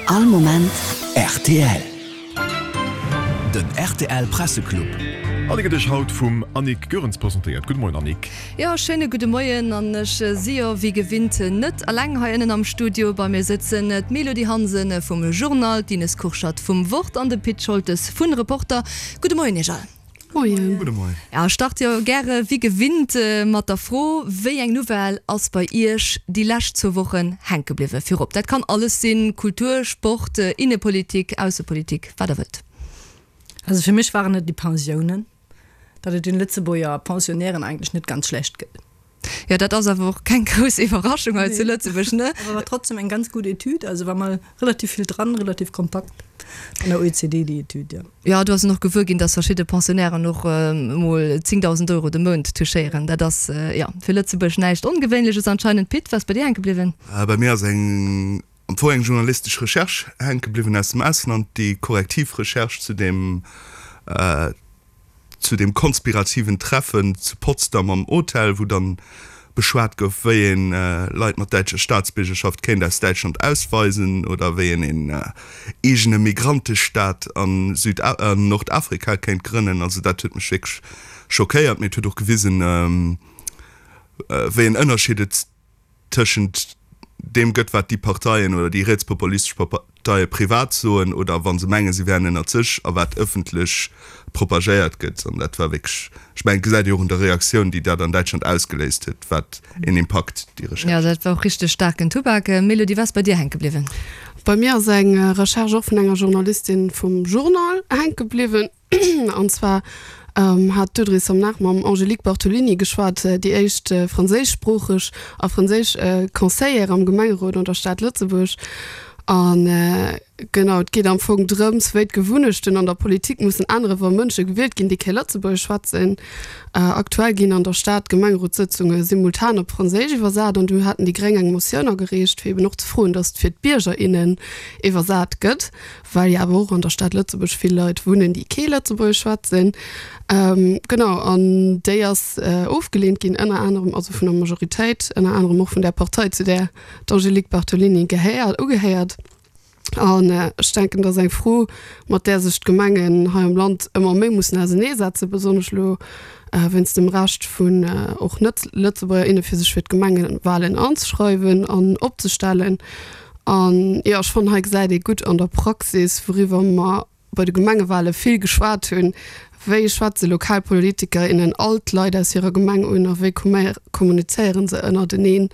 All Moment rtl. Den rtl Presseclub. An e gëtt Iech haut vum Annick Goerens presentéiert. Gudde Moien Annick. Jo, schéine gudde Moien. An ech si jo wéi gewinnt net alleng hei ënnen am Studio. Bei mir sëtzen d'Mélodie Hansen vum Journal, d'Ines Kurschat vum Wort an de Pit Scholtes vun Reporter. Gudde Moien Iech all. Moien. Gudde Moien. Ja, ech starte jo gäre wéi gewinnt mat der Fro, Wéi eng Nouvelle ass bei Iech déi lescht zwou Wochen hänke bliwwen? Virop, dat kann alles sinn, Kultur, Sport, Innepolitik, Aussepolitik, wat der wëllt. Also fir mech waren et déi Pensiounen, datt et den Lëtzebuerger Pensionnairen eigentlech net ganz schlecht gëtt. Jo, dat ass awer och keng grouss Iwwerraschung hei zu Lëtzebuerg, ne? Awer war trotzdem eng ganz gutt Etüd, also war mol relativ vill dran, relativ kompakt vun der OECD déi Etüd, jo. Jo, do ass en och gewuer ginn, dass verschidde Pensionnairen och mol 10.000 Euro de Mount touchéieren. Dat ass, jo, fir Lëtzebuerg näischt Ongewéinleches anscheinend. Pit, wat ass bei dir hänke bliwwen? Bei mir ass eng, am Fong eng journalistesch Recherche hänke bliwwen aus dem Ausland, déi korrektiv Recherche zu deem, zu deem konspirativen Treffen zu Potsdam am Hotel, wou dann beschwat gouf, wéi een Leit mat däitscher Staatsbiergerschaft kéint aus Däitschland ausweisen oder wéi een een eegene Migrantestaat an Süd an Nordafrika kéint grënnen. Also dat huet mech wierklech schockéiert, mee et huet och gewisen, wéi en Ënnerscheed et tëschent deem gëtt, wat déi Parteien oder déi rietspopulistesch Parteie privat soen oder wa se mengen, se wären ënnert sech, a wat ëffentlech propagéiert gëtt. An dat war wierklech, ech mengen, et gesäit ee och un der Reaktioun, déi dat an Däitschland ausgeléist huet, wat een Impakt déi Recherche. Jo, dat war och richteg staarken Tubak. Mélodie, wat ass bei dir hänke bliwwen? Bei mir ass eng Recherche och vun enger Journalistin vum Journal hänke bliwwen. An zwar hat d'Audrey Somnard mam Angélique Bartolini geschwat, déi éischt franséischsproocheg a franséisch Conseillère am Gemengerot an der Stad Lëtzebuerg. A genau, et geet am Fong drëms, wéi d'Gewunnechten an der Politik mussen änneren, wa Mënsche gewielt ginn, déi kee Lëtzebuergesch schwätzen. Aktuell ginn an der Stad d'Gemengerotssëtzunge simultan op Franséisch iwwersat an du haten déi Gréng eng Motioun agereecht, fir eben och ze froen, datt et fir d'Bierger, innen iwwersat gëtt. well jo awer och an der Stad Lëtzebuerg vill Leit wunnen, déi kee Lëtzebuergesch schwätzen. Genau, an déi ass ofgeleent ginn, ënner anerem, also vun der Majoritéit, ënner anerem och vun där Partei, zu där d'Angélique Bartolini gehéiert, ugehéiert. An ech denken, dat ass eng Fro, mat där sech d'Gemengen hei am Land ëmmer méi mussen auserneesetzen, besonnesch elo wéinst dem Recht vun och Net-Lëtzebuerger, inne fir sech fir d'Gemengewalen anzeschreiwen an opzestellen. An jo, ech fannen, hei gesäit ee gutt an der Praxis, wouriwwer mer bei de Gemengewale vill geschwat hunn, Wéi schwätze lokal Politiker, innen all d'Leit aus hirer Gemeng un a wéi kommunizéiere se ënnerteneen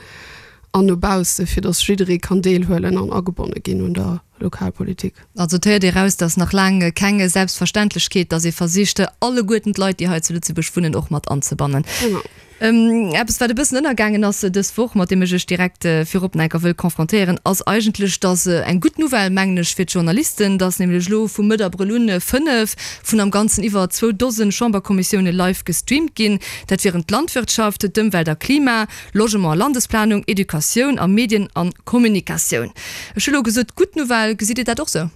an no bausse, fir datt jidderee kann deelhuelen an agebonne ginn un der Lokalpolitik. Also et héiert ee raus, datt nach laang keng Selbstverständlechkeet, datt ee versicht, alleguerten d'Leit, déi hei zu Lëtzebuerg wunnen, och mat anzebannen. Genau. Eppes, wat e bëssen ënnergaangen ass dës Woch, mat deem ech Iech direkt virop nach enker wëll confrontéieren, ass eigentlech, dass eng gutt Nouvelle, mengen ech, fir d'Journalisten, dass nämlech elo vu Mëtt Abrëll un 5 vun am Ganzen iwwer zwou Dosen Chamberkommissioune live gestreamt ginn. Dat wieren d'Landwirtschaft, d'Ëmwelt a Klima, Logement a Landesplanung, Educatioun a Medien a Kommunikatioun. Ech hu elo gesot, gutt Nouvelle. Gesitt Dir dat och sou,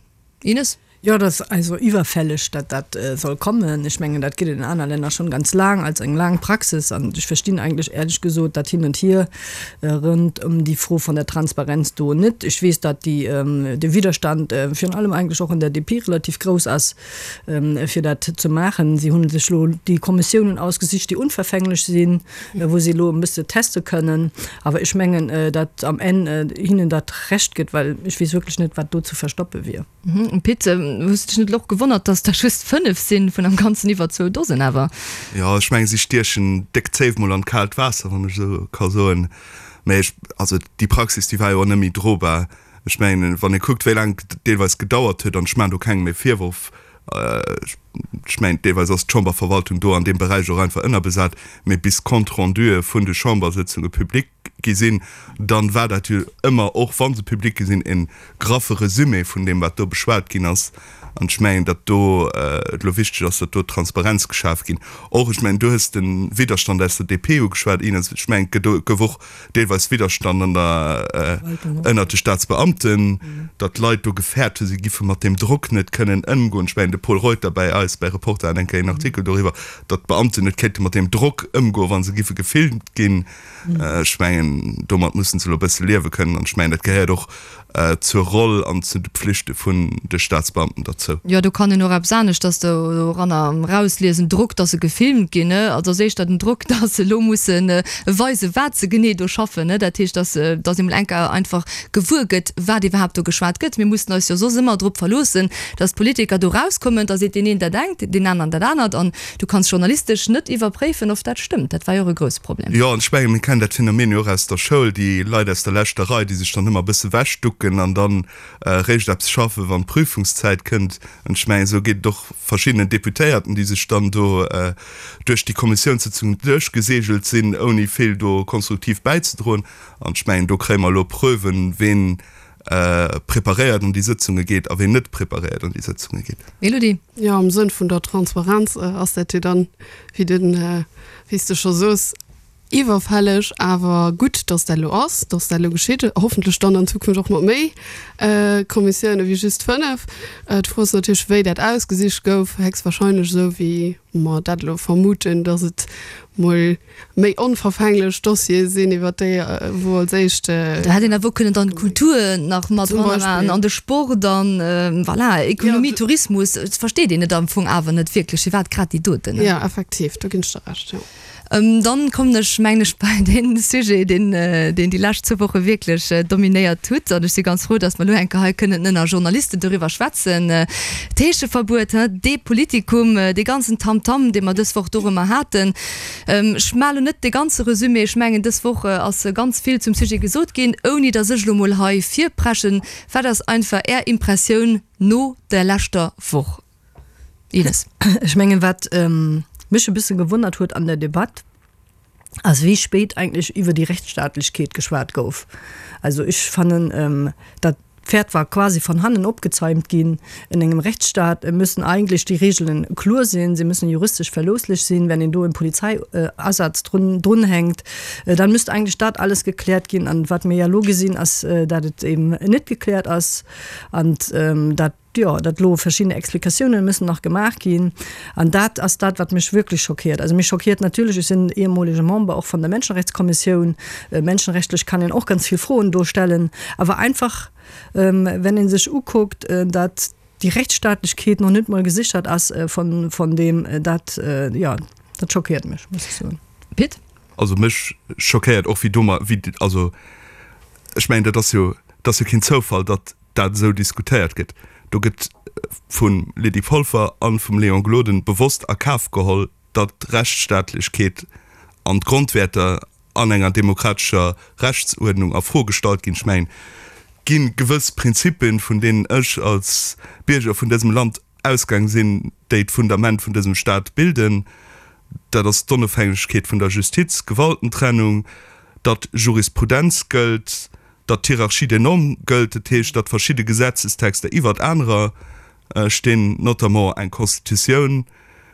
Ines? Jo, et ass also iwwerfälleg, datt dat soll kommen. Ech mengen, dat gëtt et an aner Länner schonn ganz laang als eng laang Praxis. An ech verstinn eigentlech éierlech gesot dat Hin und Hier rënd ëm déi Fro vun der Transparenz do net. Ech weess, datt déi, de Widerstand virun allem eigentlech och an der DP relativ grouss ass, fir dat ze maachen. Si hu sech elo déi Kommissiounen ausgesicht, déi unverfänglech sinn, wou si elo e bësse teste kënnen. Awer ech mengen, datt am Enn hinnen dat Recht gëtt, well ech weess wierklech net, wat do ze verstoppe wier. Pit, hues de dech net och gewonnert, dass der just 5 sinn, vun am Ganzen iwwer zwou Dosen awer? Jo, ech mengen, si stiechen déck Zéif mol an d'kaalt Waasser, wann ech esou ka soen. Mä ech, also déi Praxis, déi war jo och net méi drobar. Ech mengen, wann ee kuckt, wéi laang et deelweis gedauert huet, an ech maachen do kengem e Virworf, ech mengen, deelweis ass d'Chamberverwaltung do an deem Beräich och einfach ënnerbesat, mä bis d'Compte-rendue vun de Chambersëtzunge public gi sinn, dann war dat jo ëmmer, och wa se public gi sinn, e graffe Resumé vun deem, wat do beschwat ginn ass. An ech mengen, datt do et elo wichteg ass, datt do Transparenz geschaf ginn. Och, ech mengen, du hues de Widderstand aus der DP ugeschwat, Ines, ech mengen, et gouf och deelweis Widderstand an der, ënnert de Staatsbeamten, datt d'Leit do gefäert hu si giffe mat deem Drock net kënnen ëmgoen. Ech mengen, de Pol Reuter bäi eis bei Reporter hat eng Kéier een Artikel doriwwer, datt d'Beamten net kéinte mat deem Drock ëmgoen, wa se giffe gefilmt ginn. Ech mengen. mengen, domat mussen se elo e bësse liewe kënnen. An ech mengen, dat gehéiert och zur Roll an zu de Pflichte vun de Staatsbeamten derzou. Jo, do kann een och eppes aneschters doranner erausliesen, Drock, dass se gefilmt ginn, ne? Also ass éischter den Drock, dass se elo musse weisen, wat se genee do schaffen, ne? Dat heescht, dass, dass ee mol eng Kéier einfach gewuer gëtt, wat iwwerhaapt do geschwat gëtt. Mir mussen eis jo soss ëmmer drop verloossen, dass d'Politiker do erauskommen, da seet deen een dat engt, deen aneren dat anert an du kanns journalistesch net iwwerpréifen, of dat stëmmt. Dat war jo och e grousse Problem. Jo, an ech mengen, mir kennen dat Phänomen jo och aus der Schoul, déi Leit aus der leschter Rei, déi sech dann ëmmer e bësse wechducken an dann eréischt eppes schaffen, wann d'Prüfungszäit kënnt. An ech mengen, esou geet et och verschiddenen Deputéierten, déi sech dann do duerch déi Kommissiounssëtzungen duerchgeseegelt sinn, ouni vill do konstruktiv bäizedroen. An ech mengen, do kréie mer elo Preuven, ween preparéiert an déi Sëtzunge geet a ween net preparéiert an déi Sëtzunge geet. Elodie. Jo, am Sënn vun der Transparenz ass dat jo dann, wéi den, wéi s de scho soos, iwwerfälleg. Awer gutt, datt dat elo ass, datt dat elo geschitt, hoffentlech dann an Zukunft och mat méi Kommissioune wéi just 5. D'Fro ass natierlech, wéi dat ausgesicht gouf, héchstwahrscheinlech esou wéi mer dat elo vermuten, datt et mol méi onverfänglech Dossiere sinn, iwwer déi wou als éischt. Do hätt een awer och kënnen dann d'Kultur nach mat dran an de Sport an voilà, Ekonomie, Tourismus. Et versteet een et am Fong awer net wierklech, firwat grad déi doten. Jo, effektiv, do ginn ech der Recht, jo. Dann kommen ech, mengen ech, bei dee Sujet, deen deen déi lescht zwou Woche wierklech dominéiert hutt. An ech si ganz frou, datt mer elo eng Kéier hei kënnen ënner Journalisten doriwwer schwätzen. D'Heescheverbuet, dee Politikum, dee ganzen Tamtam, dee mer dës Woch dorëmmer haten. Ech maache lo net de ganze Resumé. Ech mengen, dës Woch ass ganz vill zum Sujet gesot ginn, ouni datt ech elo mol hei virpreschen. Wat ass einfach Är Impressioun no der leschter Woch, Ines? Ech mengen, wat mech e bësse gewonnert huet an der Debatt, ass wéi spéit eigentlech iwwer déi Rechtsstaatlechkeet geschwat gouf. Also ech fannen, dat D'Pferd war quasi von hannen opgezäumt ginn. In engem Rechtsstaat müssen eigentlech déi Regeln kloer sinn, se müssen juristesch verloosslich sinn. Wenn een do en Polizeiasaz drun drunhänkt, dann müsst eigentlech dat alles gekläert ginn. An wat mir ja elo gesinn, ass, dat et eben net gekläert ass an dat, jo, dat elo verschidden Explikatiounen müssen nach gemaach ginn. An dat ass dat, wat mech wierklech schockiert. Also mech schockiert natierlech, ech sinn ehemolege Member och von der Menschenrechtskommissioun, menschenrechtlech kann een och ganz vill Froen do stellen, awer einfach, wenn ee sech ukuckt, dat déi Rechtsstaatlechkeet nach net mol gesichert ass von, von deem, dat, jo, dat schockiert mech, muss ech soen. Pit? Also mech schockéiert och, wéi domat, wéi, also ech mengen, dat ass jo, dat ass jo keen Zoufall, datt dat esou diskutéiert gëtt. Do gëtt vum Lydie Polfer a vum Léon Gloden bewosst a Kaf geholl, datt d'Rechtsstaatlechkeet an d'Grondwäerter an enger demokratescher Rechtsuerdnung a Fro gestallt ginn. Ech mengen, et gi gewëss Prinzipien, vun deenen ech als Bierger vun dësem Land ausgaang sinn, déi d'Fundament vun dësem Staat bilden. Dat ass d'Onofhängegkeet vun der Justiz, d'Gewaltentrennung, datt Jurisprudenz gëllt, datt d'Hierarchie des normes gëllt, dat heescht, datt verschidde Gesetzestexter iwwert anerer stinn, notamment eng Constitutioun,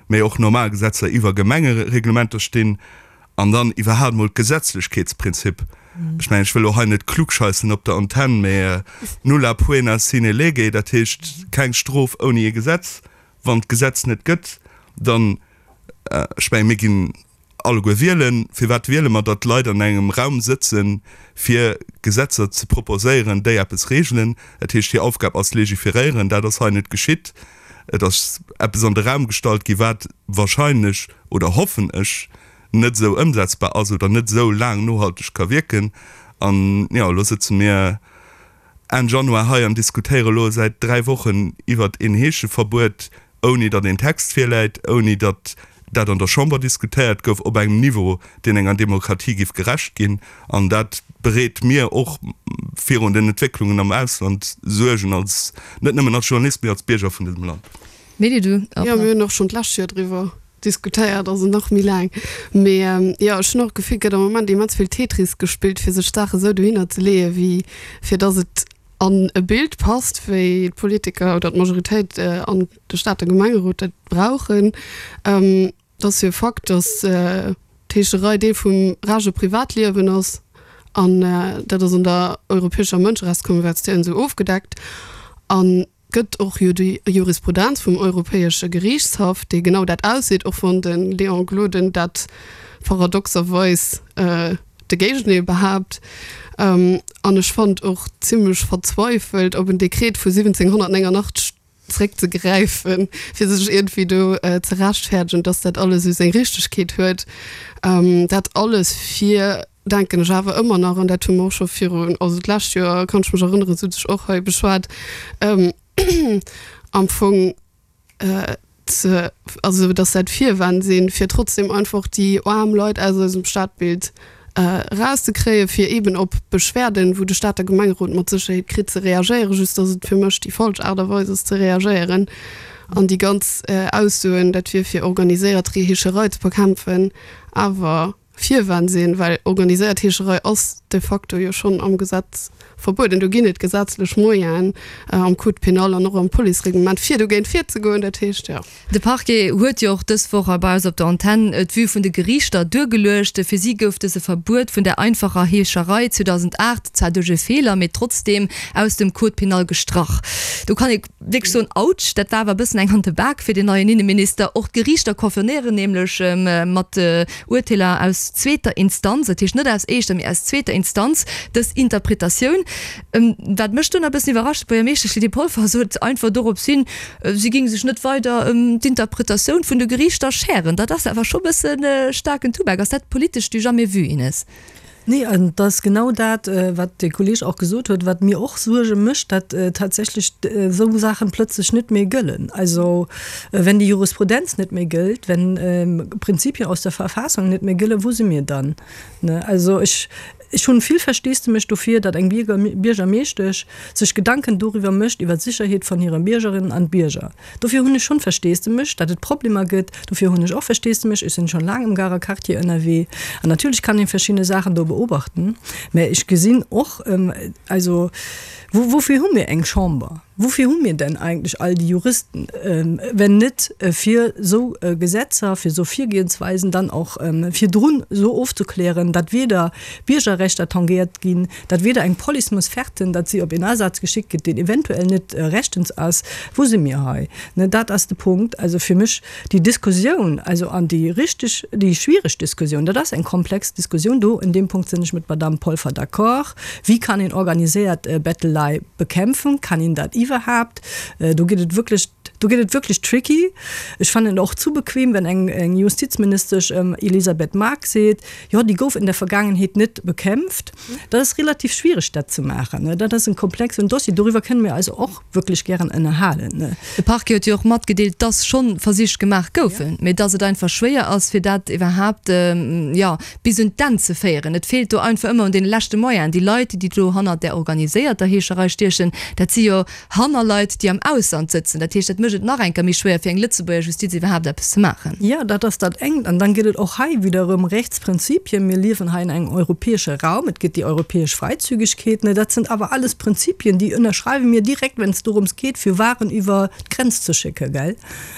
mee och normal Gesetzer iwwer Gemengereglementer stinn, an dann iwwerhaapt mol d'Gesetzlechkeetsprinzip. Ech mengen, ech wëll elo hei net klugscheissen op der Antenn, mee nulla poena sine lege, dat heescht keng Strof ouni e Gesetz. Wann d'Gesetz net gëtt, dann, ech mengen, mir ginn alleguer wielen. Firwat wiele mer, datt Leit an engem Raum sëtzen, fir Gesetzer ze proposéieren, déi eppes regelen? Dat heescht, hir Aufgab ass legiferéieren. Dat ass hei net geschitt. Et ass eppes an de Raum gestallt gi wat wahrscheinlech, oder hoffen ech, net esou ëmsetzbar ass oder net esou laang nohalteg ka wierken. An jo, elo sëtze mir Enn Januar hei an diskutéiere elo säit 3 Wochen iwwert een Heescheverbuet, ouni datt een Text virläit, ouni datt dat an der Chamber diskutéiert gouf op engem Niveau, deen enger Demokratie giff gerecht ginn. An dat bereet mir och virun den Entwécklungen am Ausland Suergen, als, net nëmmen als Journalist, mee als Bierger vun dësem Land. Mady, du och Jo, mir hunn och schonn d'lescht Joer driwwer diskutéiert, also nach méi laang. Mee jo, ech hunn och d'Gefill, et gëtt am Moment immens vill Tetris gespillt, fir sech d'Saache sou dohinner ze leeën, wéi fir datt et an e Bild passt, wéi d'Politiker oder d'Majoritéit an de Stater Gemengerot dat brauchen. Et ass jo e Fakt, datt d'Heescherei Deel vum rage Privatliewen ass an dat ass an der Europäescher Mënscherechtskonvention esou ofgedeckt. An gëtt och jo déi Jurisprudenz vum Europäesche Geriichtshaff, dee genau dat ausseet, och wann de Léon Gloden dat paradoxerweis. de Géigendeel behaapt. An ech fonnt och zimlech verzweifelt, op en Dekret vu 1789 zréckzegräifen, fir sech iergendwéi do ze rechtfäerdegen, dass dat alles esou seng Richtegkeet huet. Dat alles fir, denken ech awer ëmmer nach, an dat hu mer och scho virun, also d'lescht Joer, kann ech mech erënneren, sot ech och hei beschwat, am Fong ze, also dass dat Virwänn sinn, fir trotzdem einfach déi aarm Leit aus eisem Stadbild erauszekréien, fir eeben op Beschwerden, wou de Stater Gemengerot mat Sécherheet kritt, ze reagéieren, just dass et fir mech déi falsch Aart a Weis ass ze reagéieren. An déi ganz Aussoen, dat wier fir organiséiert Heescherei ze bekämpfen, awer Virwänn sinn, well organiséiert Heescherei ass de facto jo schonn am Gesetz verbueden. Do ginn et gesetzlech Moyenen am Code pénal an och am Policereglement, fir dogéint virzegoen. Dat heescht, jo. De Parquet huet jo och dës Woch hei bei eis op der Antenn d'Vue vun de Geriichter duergeluecht. Fir si gouf dëse Verbuet vun der einfacher Heescherei 2008 zwar duerch e Feeler, mee trotzdeem aus dem Code pénal gestrach. Do kann ee wierklech soen, Autsch, dat war awer e bëssen eng an de Bak fir den neien Inneminister. Och d'Geriichter confirméieren nämlech mat Urteeler aus zweeter Instanz, dat heescht net aus éischter, mee aus zweeter Instanz, dës Interpretatioun. Wat mech dunn e bëssen iwwerrascht, d'Buergermeeschtesch Lydie Polfer sot einfach dorops hin, si géing sech net weider ëm d'Interpretatioun vun de Geriichter schären. Dat ass awer scho bësse staarken Tubak. Ass dat politesch du jamais vu, Ines? Nee, an et ass genau dat, wat de Kolleeg och gesot huet, wat mir och Suerge mécht, datt tatsächlech esou Saachen plëtzlech net méi gëllen. Also wenn déi Jurisprudenz net méi gëllt, wenn Prinzipien aus der Verfassung net méi gëllen, wou si mir dann? Also ech, Ech hunn vill Versteesdemech dofir, datt eng Biergermeeschtesch sech Gedanken doriwwer mécht iwwer d'Sicherheet van hire Biergerinnen an Bierger. Dofir hunn ech schonn Versteesdemech, datt et Problemer gëtt. Dofir hunn ech och Versteesdemech, ech sinn schonn laang am Garer Quartier ënnerwee an natierlech kann een verschidde Saachen do beobachten, mä ech gesinn och, also woufir hu mir eng Chamber? Woufir hu mir denn eigentlech all déi Juristen, wenn net fir esou Gesetzer, fir esou Virgehensweisen dann och virdrun esou ofzeklären, datt weder Biergerrechter tangéiert ginn, datt weder eng Police muss färten, datt si op een Asaz geschickt gëtt, deen eventuell net rechtens ass? Wou si mir hei? Dat ass de Punkt. Also fir mech déi Diskussioun, also an déi richteg, déi schwiereg Diskussioun, dat ass eng komplex Diskussioun, do in deem Punkt sinn ech mat Madamm Polfer d'accord, Wéi kann een organiséiert Bettelei bekämpfen? Kann een dat iwwerhaapt? Do gëtt et wierklech, do gëtt et wierklech tricky. Ech fannen et och zu bequem, wenn eng, eng Justizministesch Elisabeth Margue seet, jo, déi gouf in der Vergangenheet net bekämpft. Dat ass relativ schwiereg, dat ze maachen. Dat ass en komplexen Dossier. Doriwwer kënne mir eis och wierklech gären ënnerhalen. De Parquet huet jo och matgedeelt, dass schonn Versich gemaach goufen, mee dass et einfach schwéier ass, fir dat iwwerhaapt, jo, bis un d'Enn ze féieren. Et feelt do einfach ëmmer un deene leschte Moyenen. Déi Leit, déi do hannert där organiséierter Heescherei stiechen, dat si jo Hannerleit, déi am Ausland sëtzen. Dat heescht, dat mécht et nach eng Kéier méi schwéier, fir eng Lëtzebuerger Justiz iwwerhaapt eppes ze maachen. Jo, dat ass dat engt. An dann gëtt et och hei wieder erëm Rechtsprinzipien. Mir liewen hei in engem europäesche Raum. Et gëtt déi europäesch Freizügigkeet. Dat sind awer alles Prinzipien, déi ënnerschreiwe mir direkt, wenn es dorëms geet, fir Waren iwwer d'Grenz ze schécken, gell?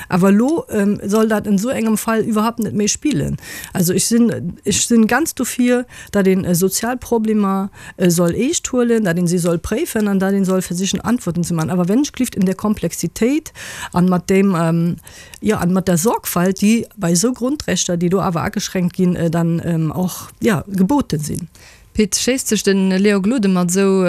Awer elo soll dat in esou engem Fall iwwerhaupt net méi spillen. Also ech sinn, ech sinn ganz dofir, datt een sozial Problemer soll eescht huelen, datt een si soll préifen an datt een soll versichen Antworten ze maachen. Awer wenn ech gelift in der Komplexitéit an mat deem, jo, an mat der Sorgfalt, déi bei esou Grundrechter, déi do awer ageschränkt ginn, dann och, jo, geboten sinn. Pit, schéisst sech de Léon Gloden mat esou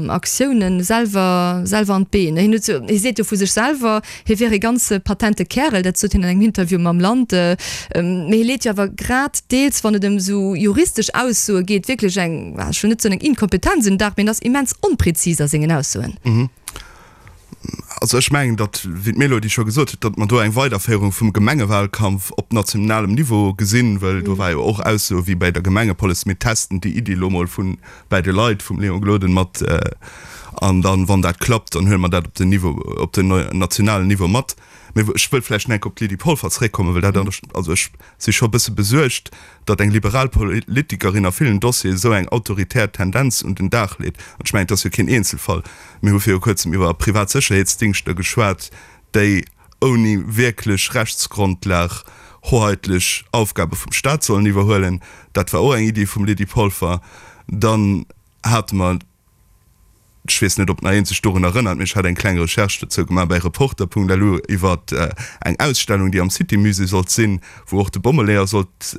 Aktiounen selwer selwer an d'Been? Hien huet jo, hie seet jo vu sech selwer, hie wier e ganz patente Kärel, dat sot hien an engem Interview mam Land. Mee hie leet jo awer grad deels, wann et ëm esou juristesch Aussoe geet, wierklech eng, ech wëll net soen eng Inkompetenz un den Dag, mee en ass immens onprezis a sengen Aussoen. Also ech mengen, datt, wéi d'Mélodie scho gesot huet, datt mer do eng Weiderféierung vum Gemengewalkampf op nationalem Niveau gesinn, well do war jo och Aussoe wéi bäi der Gemengepolice, mir testen déi Iddi elo mol vun bäi de Leit vum Léon Gloden mat an dann, wann dat klappt, dann huele mer dat op den Niveau, op den nationalen Niveau mat. Mee ech wëll vläicht nach eng Kéier op d'Lydie Polfer zréckkommen, well dat, also ech si scho e bësse besuergt, datt eng liberal Politikerin a villen Dossieren esou eng autoritär Tendenz un den Dag leet. An ech mengen, et ass jo keen Eenzelfall. Mir hu viru kuerzem iwwer privat Sécherheetsdingschter geschwat, déi ouni wierklech Rechtsgrondlag hoheitlech Aufgabe vum Staat sollen iwwerhuelen. Dat war och eng Iddi vum Lydie Polfer. Dann hate mer Ech weess net, ob nach een sech dorun erënnert, mee ech hat eng kleng Recherche dozou gemaach bäi Reporter.lu iwwer eng Ausstellung, déi am City Musée sollt sinn, wou och de Bommeleeër sollt.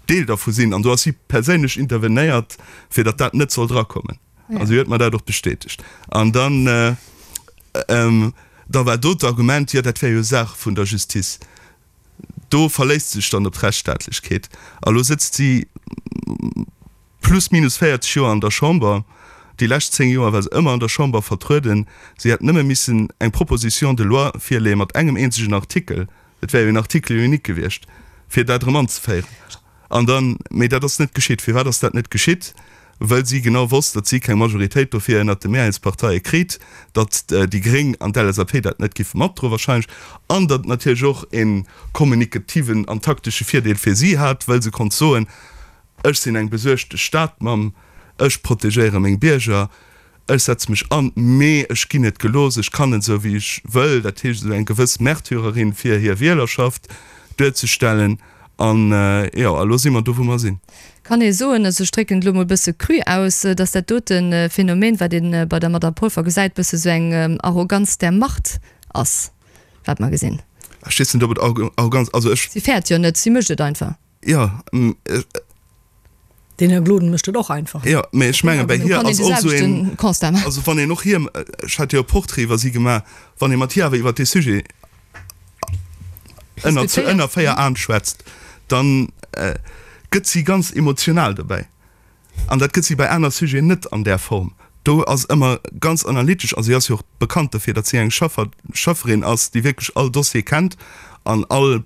Deel dervu sinn. An do ass si perséinlech intervenéiert, fir datt dat net soll drakommen. A si huet mer dat och bestätegt. An dann, da war do d'Argument, jo dat wär jo Saach vun der Justiz. Do verléisst se sech dann op d'Rechtsstaatlechkeet. A lo sëtzt si plus minus 40 Joer an der Chamber. Déi lescht 10 Joer war se ëmmer an der Chamber vertrueden. Si hätt nëmme missen eng Proposition de loi virleeë mat engem eenzegen Artikel, et wär jo en Article unique gewiescht, fir dat erëm anzeféieren. An dann, mee dat ass net geschitt. Firwat ass dat net geschitt? Well si genau wosst, datt si keng Majoritéit dofir ënnert de Mehrheetsparteie kritt, datt déi Gréng an d'LSAP dat net giffe matdroen wahrscheinlech, an datt et natierlech och e kommunikativen an taktesche Virdeel fir si hat, well se konnt soen, Ech sinn eng besuergte Stadmamm, ech protegéiere meng Bierger, ech setze mech an, mee ech ginn net gelooss, ech kann net esou wéi ech wëll. Dat heescht esou eng gewëss Märtyrerin fir hir Wielerschaft duerzestellen. An jo, a lo si mer do wou mer sinn. Kann ee soen, also ech drécken et elo mol e bësse cru aus, datt dat dote Phänomen, wat ee bei der Madame Polfer gesäit, bësse sou eng Arroganz der Macht ass, wat mer gesinn? Ech weess net, ob et Arroganz, also ech. Si fäert jo net, si mécht et einfach. Jo. Den Här Gloden mécht et och einfach. Jo, mä ech menge bei hir ass och esou een, also wann een och hir, ech hat jo e Portrait iwwer si gemaach, wann ee mat hir awer iwwer dee Sujet ënner zu ënner 4 Aen schwätzt, dann gëtt si ganz emotional dobäi. An dat gëtt si bei aner Sujeten net an där Form. Do ass ëmmer ganz analytesch a si ass jo och bekannt dofir, datt si eng Schaffer, Schafferin ass, déi wierklech all Dossier kennt an all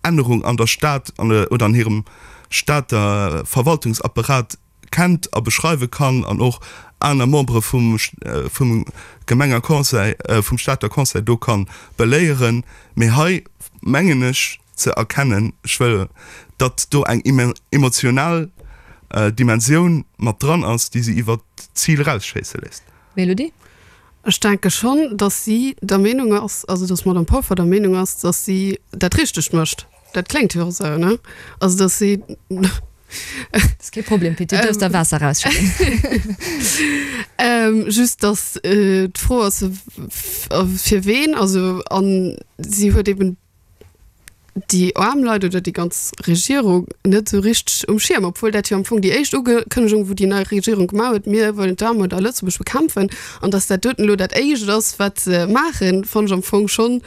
Ännerung an der Stad an oder an hirem Stater Verwaltungsapparat kennt a beschreiwe kann an och aner Membere vum vum Gemengerconseil, vum Stater Conseil do ka beléieren. Mee hei mengen ech, ze erkennen, ech wëll, datt do eng emotional Dimensioun mat dran ass, déi si iwwer d'Zil erausschéisse léisst. Mélodie? Ech denke schonn, datt si der Meenung ass, also datt d'Madame Polfer der Meenung ass, datt si dat Richtegt mécht. Dat kléngt jo och esou, ne? Also datt si. Dat ass kee Problem, Pit, du duerfs der Waasser erausschëdden. Just datt d'Fro ass, fir ween, also a si huet eben déi aarm Leit oder déi ganz Regierung net esou richteg um Schierm, obwuel dat jo am Fong déi éischt Ukënnegung, wou déi nei Regierung gemaach huet, mir wëllen d'Aarmut a Lëtzebuerg bekämpfen, an datt dat doten elo dat éischt ass, wat se maachen, fannen ech am Fong schonn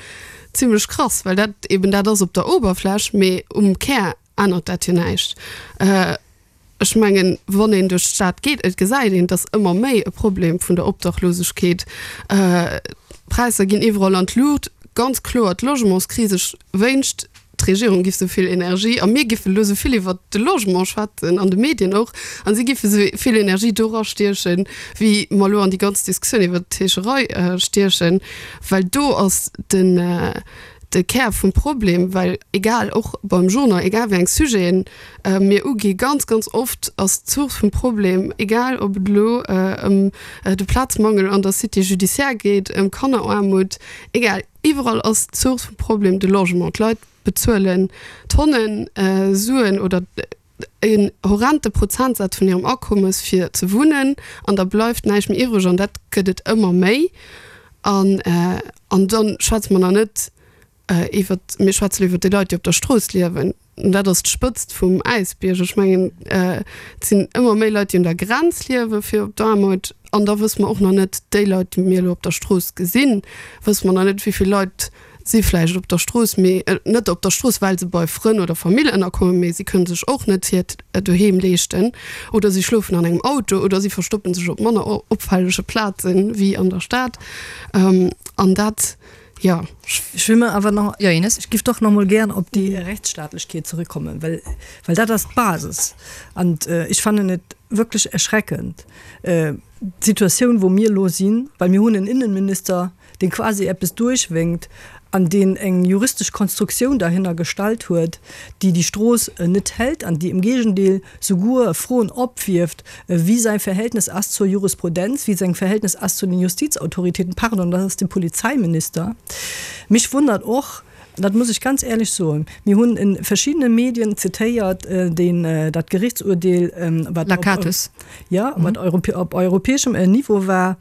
zimlech krass, well dat eben dat ass op der Oberfläch, mee um Kär ännert dat jo näischt. Ech mengen, wann een duerch d'Stad geet, et gesäit een, et ass ëmmer méi e Problem vun der Obdachlosegkeet. D'Präisser ginn iwwerall an d'Luucht. Ganz kloer d'Logementskris. Ech wéinscht, d'Regierung giff esou vill Energie, a mir giffen elo esou vill iwwert de Logement schwätzen, an de Medien och, a si giffe esou vill Energie dora stiechen, wéi mer elo an déi ganz Diskussioun iwwert d'Heescherei stiechen, well do ass den, de Kär vum Problem, well egal, och beim Journal, egal wéi eng Sujeten mir ugi, ganz, ganz oft ass d'Source vum Problem, egal ob et elo ëm de Plazmangel an der Cité judiciaire geet, ëm Kanneraarmut, egal, iwwerall ass d'Source vum Problem de Logement. D'Leit bezuelen Tonnen Suen oder en horrente Prozentsaz vun hirem Akommes fir ze wunnen an da bleift näischt méi iwwreg an dat gëtt et ëmmer méi. An an da schwätze mer nach net iwwert, mir schwätze lo iwwert déi Leit, déi op der Strooss liewen. An dat ass d'Spëtzt vum Äisbierg. Ech mengen, et sinn ëmmer méi Leit, déi un der Grenz liewe fir op d'Aarmut. An da wësse mer och nach net, déi Leit, déi mir elo op der Strooss gesinn, wësse mer nach net, wéi vill Leit si vläicht op der Strooss, mee net op der Strooss, well se bei Frënn oder Famill ënnerkommen, mee si kënne sech och net hiert Doheem leeschten oder si schlofen an engem Auto oder si verstoppe sech op manner opfällege Plaze wéi an der Stad. An dat, jo. Ech wëll mer awer nach, jo Ines? Ech giff doch nach emol gären op déi Rechtsstaatlechkeet zurückkommen, well, well dat ass d'Basis. An ech fannen et wierklech erschreckend, d'Situatioun, wou mir elo sinn, well mir hunn en Innenminister, deen quasi eppes duerchwénkt an deen eng juristesch Konstruktioun derhinner gestallt huet, déi déi Strooss net hält an déi im Gegendeel souguer Froen opwierft, wéi säi Verhältnis ass zur Jurisprudenz, wéi seng Verhältnis ass zu den Justizautoritäten, pardon, dat ass de Polizeiminister. Mich wundert och. Dat muss ech ganz éierlech soen. Mir hunn in verschiddene Medien zitéiert deen, dat Gerichtsurteel, wat op, jo, wat op europäeschem Niveau war.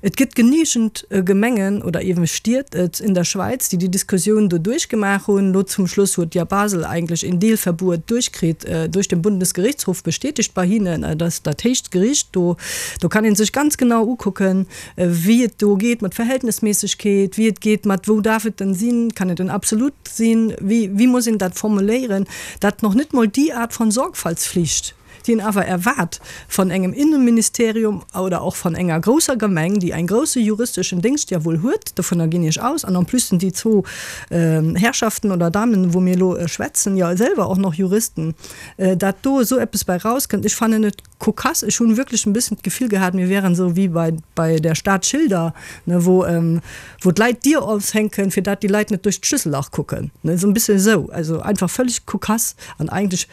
Et gëtt genügend Gemengen oder eeben Stied in der Schweiz, déi déi Diskussioun do duerchgemaach hunn. Elo zum Schluss huet ja Basel eigentlech een Deelverbuet duerchkritt, duerch den Bundesgerichtshof bestätigt bei hinnen. Dat ass dat héichst Gericht do. Do kann ee sech ganz genau ukucken, wéi et do geet mat Verhältnismäßigkeet, wéi et geet mat wou darf et denn sinn, kann et en absolut sinn, wéi, wéi muss een dat formuléieren, dat noch net mol déi Art von Sorgfaltspflicht, déi een awer erwaart von engem Innenministerium oder och von enger grousser Gemeng, déi en grousse juristeschen Déngscht ja wuel huet, dovunner ginn ech aus, an en plus sinn déi zwou Herrschaften oder Damen, wou mir elo schwätzen, jo selwer och noch Juristen, dat do esou eppes bei rauskënnt, ech fannen et Kokass, ech hunn wierklech en bëssen d'Gefill gehat, mir wären esou wéi bei bei der Stad Schilder, ne, wou wou d'Leit d'Dier opshänken, fir dat déi Leit net duerch d'Schlüssellach kucken, ne, esou en bëssen esou, also einfach völleg kokass an eigentlech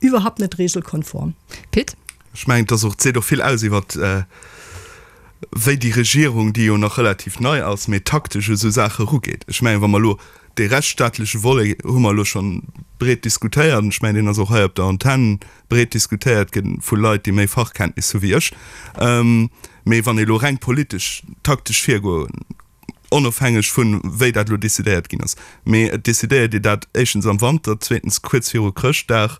iwwerhaupt net regelkonform. Pit? Ech mengen, et ass och, et seet och vill aus iwwert wéi déi Regierung, déi jo nach relativ nei ass, mee taktesch u sou Saache erugeet. Ech mengen, wa mer elo dee rechtsstaatleche Volet hu mer elo schonn breet diskutéiert, an ech mengen, deen ass och hei op der Antenn breet diskutéiert ginn vu Leit, déi méi Fachkenntnis hu wéi ech. Mee wann ee elo reng politesch, taktesch virgoen, onofhängeg vun wéi dat elo decidéiert ginn ass, mee et decidéiert ee dat éischtens am Wanter, zweetens kuerz viru Chrëschtdag,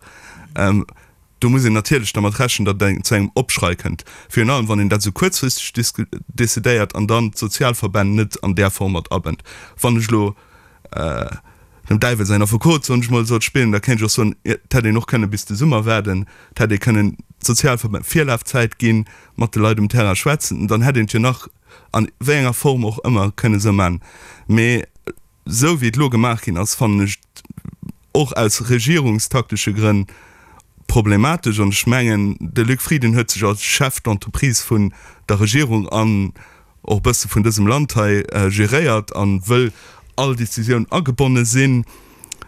do muss een natierlech dermat rechnen, datt et zu engem Opschrei kënnt, virun allem wann een dat esou kuerzfristeg decidéiert an dann d'Sozialverbänn net an där Form mat abënnt. Wann ech elo dem Däiwel säin Affekot, soen ech mol, sollt spillen, da kéint ech och soen, et hätt een och kënne bis de Summer waarden, et hätt ee kënnen d'Sozialverbänn Virlafzäit ginn, mat de Leit um Terrain schwätzen, dann hätt een et jo nach an wéi enger Form och ëmmer kënne sou man. Mee esou wéi et elo gemaach ginn ass, fannen ech et och aus regierungstaktesche Grënn problematesch. An ech mengen, de Luc Frieden huet sech als Chef d'entreprise vun der Regierung an och e bësse vun dësem Land hei geréiert an wëll all Décisioun agebonne sinn.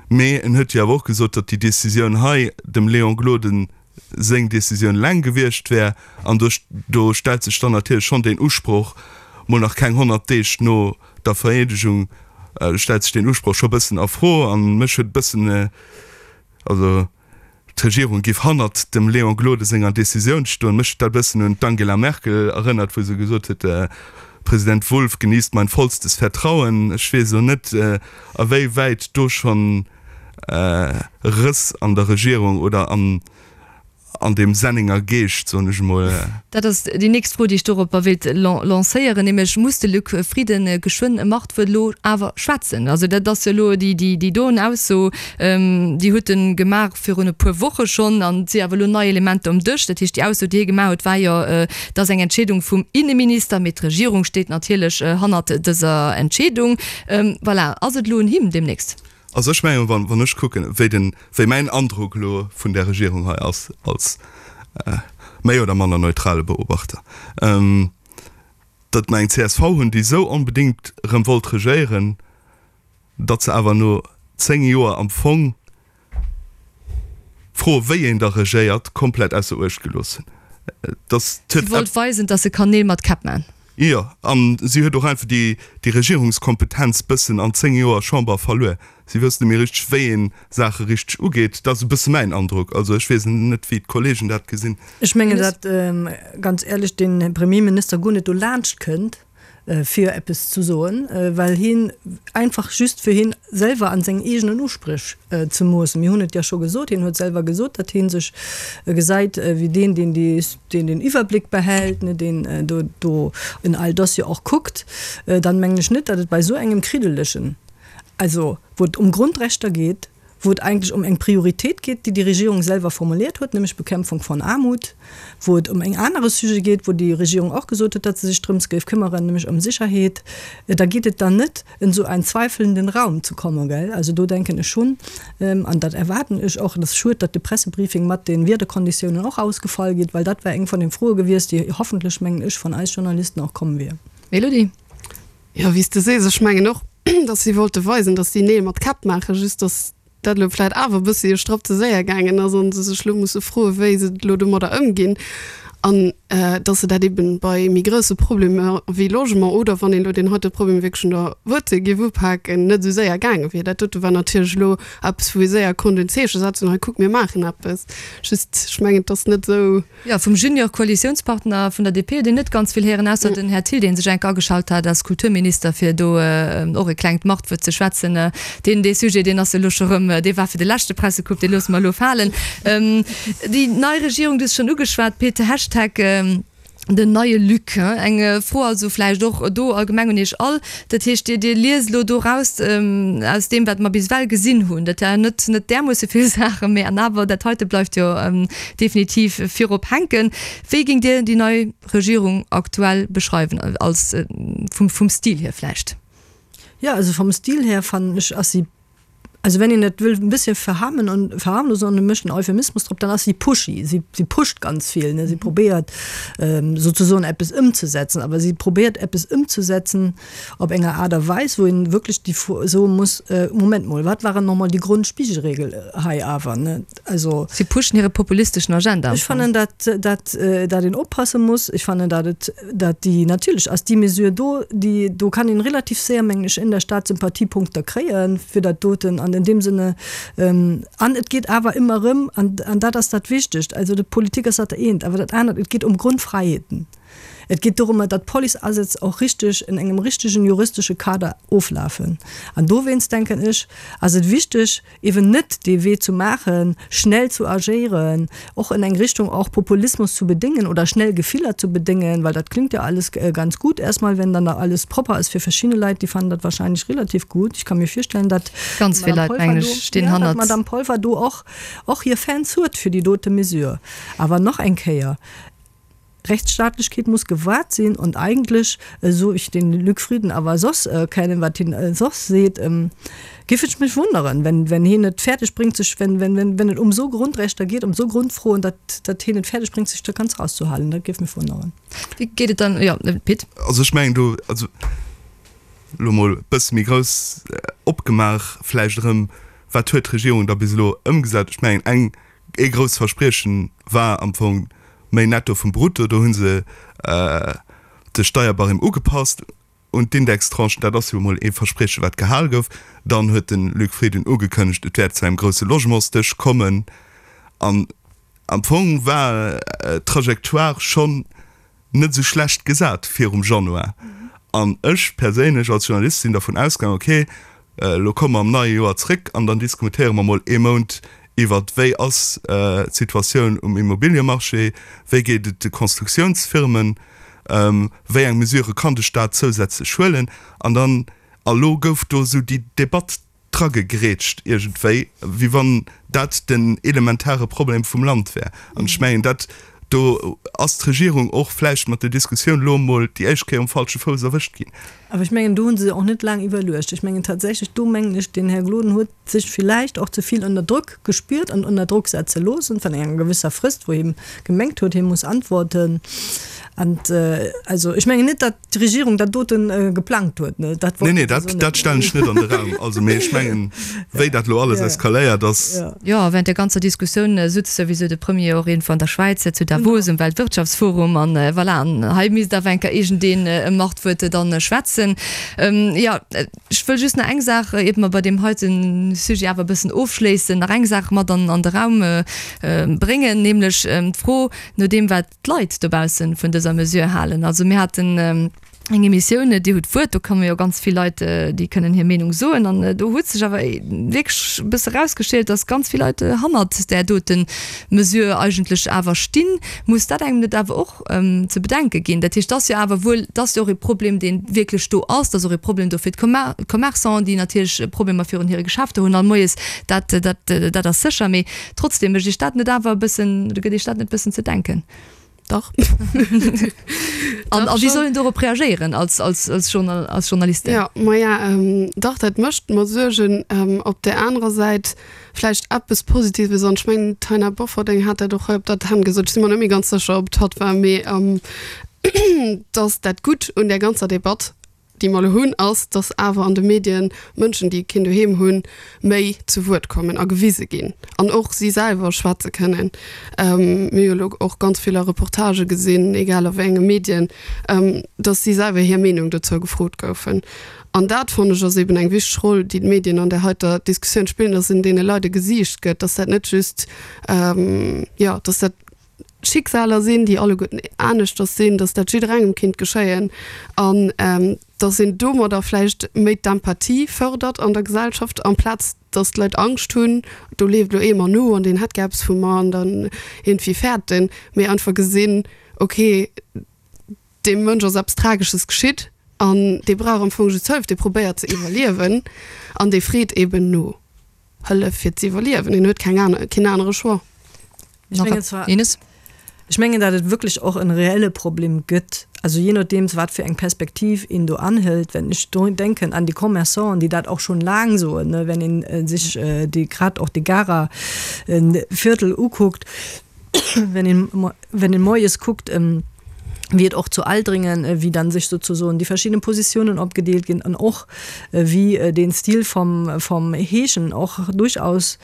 Mee en huet jo awer och gesot, datt déi Décisioun hei dem Léon Gloden seng Décisioun eleng gewiescht wär. An do do stellt sech dann natierlech schonn deen Usproch, mol nach keng 100 Deeg no der Vereedegung, stellt sech deen Usproch scho bëssen a Fro. An mech huet e bëssen, also D'Regierung géif hannert dem Léon Gloden senger Decisioun stoen. Mech huet dat e bëssen un d'Angela Merkel erënnert, wou se gesot huet, Präsident Wulff genießt mein vollstes Vertrauen. Ech weess elo net, a wéi wäit do schonn Rëss an der Regierung oder an an deem Sennenger Geescht, soen ech emol. Dat ass déi nächst Fro, déi ech doropper wéilt lancéieren, nämlech, Muss de Luc Frieden geschwënn e Machtwuert elo awer schwätzen? Also dat ass jo elo déi doen Ausso, déi huet e gemaach virun e puer Woche schonn an et si awer elo nei Elementer um Dësch. Dat heescht, déi Ausso, déi hie gemaach huet, war jo, et ass eng Entscheedung vum Inneminister, mee d'Regierung steet natierlech hannert dëser Entscheedung. Voilà, ass et elo un him deemnächst? Also ech mengen, wann, wann ech kucken, wéi den, wéi mäin Androck elo vun där Regierung hei ass, als méi oder manner neutrale Beobachter, datt mer eng csv hunn, déi esou onbedéngt erëm wollt regéieren, datt se awer no 10 Joer am Fong d'Fro, wéi een da regéiert, komplett ausser Uecht gelooss hunn. Dass Si wollt weisen, datt se kann Neel mat Käpp man. Jo, a si huet och einfach déi Regierungskompetenz bëssen an 10 Joer Chamber verluer. Si wësst net méi richteg, wéi een Saache richteg ugeet. Dat ass e bësse mäin Androck. Also ech weess net, wéi d'Kollegen dat gesinn. Ech mengen, datt ganz éierlech de Premierminister guer net dolaanscht kënnt, fir eppes ze soen, well hien einfach just fir hien selwer an seng eegenen Uspréch ze moossen. Mir hunn et jo scho gesot, hien huet selwer gesot, datt hie sech gesäit wéi deen, deen déi, deen den Iwwerbléck behält, ne, deen do, do in all Dossier och kuckt. Dann mengen ech net, datt et bei esou engem kriddelegen, also wou et ëm Grundrechter geet, wou et eigentlech ëm eng Prioritéit geet, déi déi Regierung selwer formuliert huet, nämlech Bekämpfung von Armut, wou et ëm eng anere Sujet geet, wou déi Regierung och gesot huet, datt se sech drëms géif këmmeren, nämlech ëm Sicherheet, da geet et dann net in so einen zweifelnden Raum zu kommen, gell. Also do denken ech schonn, an dat erwaarden ech och, et ass schued, datt de Pressebriefing mat de Wiederkonditiounen och ausgefall geet, well dat wär eng von den Froe gewiescht, déi hoffentlech, mengen ech, von eis Journalisten och komm wier. Elodie. Jo, wéi s de sees, ech mengen och, datt si wollte weisen, datt si Neel mat Käpp maachen, just datt dat elo vläit awer e bëssi e Strapp ze séier gaangen ass an se sech elo musse froen, wéi se elo domadder ëmginn. An dass se dat eben bei méi grousse Problemer wéi Logement oder wann een elo deen heite Problem wierklech un der Wuerzel géif upaken, net esou séier gaange wier. Dat dote war natierlech elo eppes, wou ee séier konnt en Zeeche setzen, hei kuck, mir maachen eppes. Just, ech mengen, et ass net esou. Jo, vum Junior-Koalitiounspartner vun der DP huet een net ganz vill héieren, ausser den Här Thill, dee sech enk ageschalt hat als Kulturminister, fir do och e klengt Machtwuert ze schwätzen. Deen, dee Sujet, deen ass elo scho rëm, dee war fir de leschte Pressecoupe, dee loosse mer elo falen. Déi nei Regierung, du hues schonn ugeschwat, Pit, Hashtag den neie Luc. Eng Fro also vläicht och do allgemeng un Iech all. Dat heescht, Dir, Dir liest elo do raus aus deem, wat mer bis ewell gesinn hunn, dat war net, net därmoosse vill Saachen, mä an awer, dat heite bleift jo definitiv virop hänken. Wéi géingt Dir déi nei Regierung aktuell beschreiwen, als vum, vum Stil hier vläicht? Jo, also vom Stil her fannen ech ass si, also wenn een et wëll e bësschen verharmen und verharmlosen an e mécht en Euphemismus drop, dann ass si pushy. Si, si pusht ganz vill, ne, si probéiert souzesoen eppes ëmzesetzen, awer si probéiert eppes ëmzesetzen op enger Aart a Weis, wou een wierklech déi Fro soe muss, Moment mol, wat waren nochmol déi Grondspiegelregel hei awer, ne? Also. Si pushen hire populisteschen Agenda. Ech fannen, dat, dat, dat een oppasse muss. Ech fannen, dat et, dat déi, natierlech ass déi Mesure do, déi, do kann een relativ séier, mengen ech, in der Stad Sympathiepunkter kréie fir dat doten. An in deem Sinne, an et geet awer ëmmer erëm, an, an dat ass dat Wichtegt, also d'Politik ass dat eent, awer dat anert, et geet ëm Grundfreiheeten. Et geet dorëmmer, datt d'Policeasätz och richteg in engem richtegen juristesche Kader oflafen. An dowéinst, denken ech, ass et wichteg, eben net dee Wee zu maachen, schnell zu agéieren, och in eng Richtung och Populismus zu bedéngen oder schnell Gefiller zu bedéngen, well dat klingt ja alles ganz gut erstmal, wenn dann da alles propper ass fir verschidde Leit, déi fannen dat wahrscheinlech relativ gut. Ich kann mir virstellen, datt Ganz vill d'Madame Leit, mengen Polfer do, ech, stinn ja, datt hannert. d'Madame Polfer do och, och hir Fans huet fir déi dote Mesure. Awer nach eng Kéier, Rechtsstaatlechkeet muss gewahrt sinn und eigentlech, esou ech den Luc Frieden awer soss kennen, wat hien soss seet, géif ech mech wonneren, wenn, wenn hien et fäerdeg bréngt sech, wenn, wenn, wenn, wenn et um esou Grundrechter geet, um esou Grundfroen, datt, datt hien et fäerdeg bréngt sech do ganz rauszuhalen. Dat géif mech wonneren. Wéi geet et dann, jo, Pit? Also ech mengen do, also elo mol e bësse méi grouss opgemaach vläicht erëm, wat huet d'Regierung da bis elo ëmgesat? Ech mengen eng Ee grousst Verspriechen war am Fong méi Netto vum Brutto. Do hu se de Steierbarème ugepasst un d'Indextranchen. Dat ass jo emol ee Versprieche wat gehal gouf. Dann huet de Luc Frieden ugekënnegt, et wäert zu engem grousse Logementsdësch kommen. An am Fong war d'Trajectoire schonn net esou schlecht gesat virum Januar. An ech perséinlech als Journalist sinn dervun ausgaangen, okay, elo komme mer am neie Joer zréck an dann diskutéiere mer mol ee Mount iwwert, wéi ass d'Situatioun um Immobiliemarché, wéi geet et de Constructiounsfirmen, wéi eng Mesure kann de Staat zousätzlech huelen. An dann, a lo gouf do esou déi Debatt dragegrätscht iergendwéi, wéi wann dat den elementare Problem vum Land wär. An ech mengen, dat do ass d'Regierung och vläicht mat der Diskussioun elo emol déi éischt Kéier um falsche Fouss erwëscht ginn. Awer ech mengen, do hu se och net laang iwwerluecht. Ech mengen tatsächlech, do mengen ech, den Här Gloden huet sech villäicht och ze vill ënner Drock gespiert an ënner Drock setze loossen vun enger gewësser Frist, wou hie gemengt huet, hie muss antworten. An also ech mengen net, datt d'Regierung dat doten geplangt huet, ne? Dat wollt Nee, nee, dat, dat stellen ech net an de Raum. Also, mee ech mengen, wéi dat elo alles eskaléiert ass. Jo, während der ganzer Diskussioun sutz souwisou de Premier och iergendwou an der Schwäiz, zu Davos um Weltwirtschaftsforum. An voilà, an hei misst awer eng Kéier iergendeen e Machtwuert dann schwätzen. Jo, ech wëll just nach eng Saach, iert mer bei deem heite Sujet awer e bëssen ofschléissen, nach eng Saach mat an an de Raum bréngen, nämlech d'Fro no deem, wat d'Leit dobaussen vun dëser Mesure halen. Also mir haten eng Emissioun, Dir hutt d'Wuert, do komme jo ganz vill Leit, déi kënnen hir Meenung soen. An do huet sech awer wierklech e bësse erausgeschielt, datt ganz vill Leit hannert där dote Mesure eigentlech awer stinn. Muss dat engem net awer och ze bedenke ginn? Dat heescht, et ass jo awer wuel, et ass jo och e Problem, dee wierklech do ass. Et ass och e Problem do fir d'Commerçanten, déi natierlech Problemer virun hire Geschäfter hunn all moies. Dat, dat, dat ass sécher. Mee Trotzdem, mécht Iech dat net awer e bëssen, oder gëtt Iech dat net e bëssen ze denken? Dach. An a wéi soll een dorop reagéieren als, als, als Journal, als Journalistin? Jo, maja, dach, dat mécht mer Suergen. Op där anerer Säit vläicht eppes Positives, an ech mengen, d'Taina Bofferding hat dat och hei op der Antenn gesot, ech si mer net méi ganz sécher, ob et hatt war, mee datt dat Gutt un där ganzer Debatt. déi mer elo hunn, ass, dass awer an de Medien Mënschen, déi keen Doheem hunn, méi zu Wuert kommen a gewise ginn an och si selwer schwätze kënnen. Mir hu jo elo och ganz vill a Reportagë gesinn, egal a wéi enge Medien, dass si selwer hir Meenung dozou gefrot goufen. An dat, fannen ech, ass eben eng wichteg Roll, déi d'Medien an där heiter Diskussioun spillen, dass een deene Leit e Gesiicht gëtt, dass dat net just, jo, dass dat Schicksaler sinn, déi alleguerten aneschters sinn, dass dat jidderengem kinnt geschéien an dass een domadder vläicht méi d'Empathie fërdert an der Gesellschaft, amplaz dass d'Leit Angscht hunn, do leeft elo ee mer no an deen hätt gär eppes vu mer an dann iergendwéi fäerten, mee einfach gesinn, okay, deem Mënsch ass eppes Tragesches geschitt an dee brauch am Fong just Hëllef, dee probéiert ze iwwerliewen an dee freet eben no Hëllef fir ze iwwerliewen, en huet keng aner, keen anere Choix. Ech mengen zwar, Ines? Ech mengen, datt et wierklech och en reelle Problem gëtt, also je nodeems wat fir eng Perspektiv een do anhëlt. Wenn ech do denken an déi Commerçanten, déi dat och schonn laang soen, ne, wenn een sech déi grad och de Garer Viertel ukuckt, wenn een, wenn een moies kuckt, wéi et och zu Aldringen, wéi dann sech sozusoen déi verschidden Positiounen opgedeelt ginn an och wéi den Stil vom, vom Heeschen och durchaus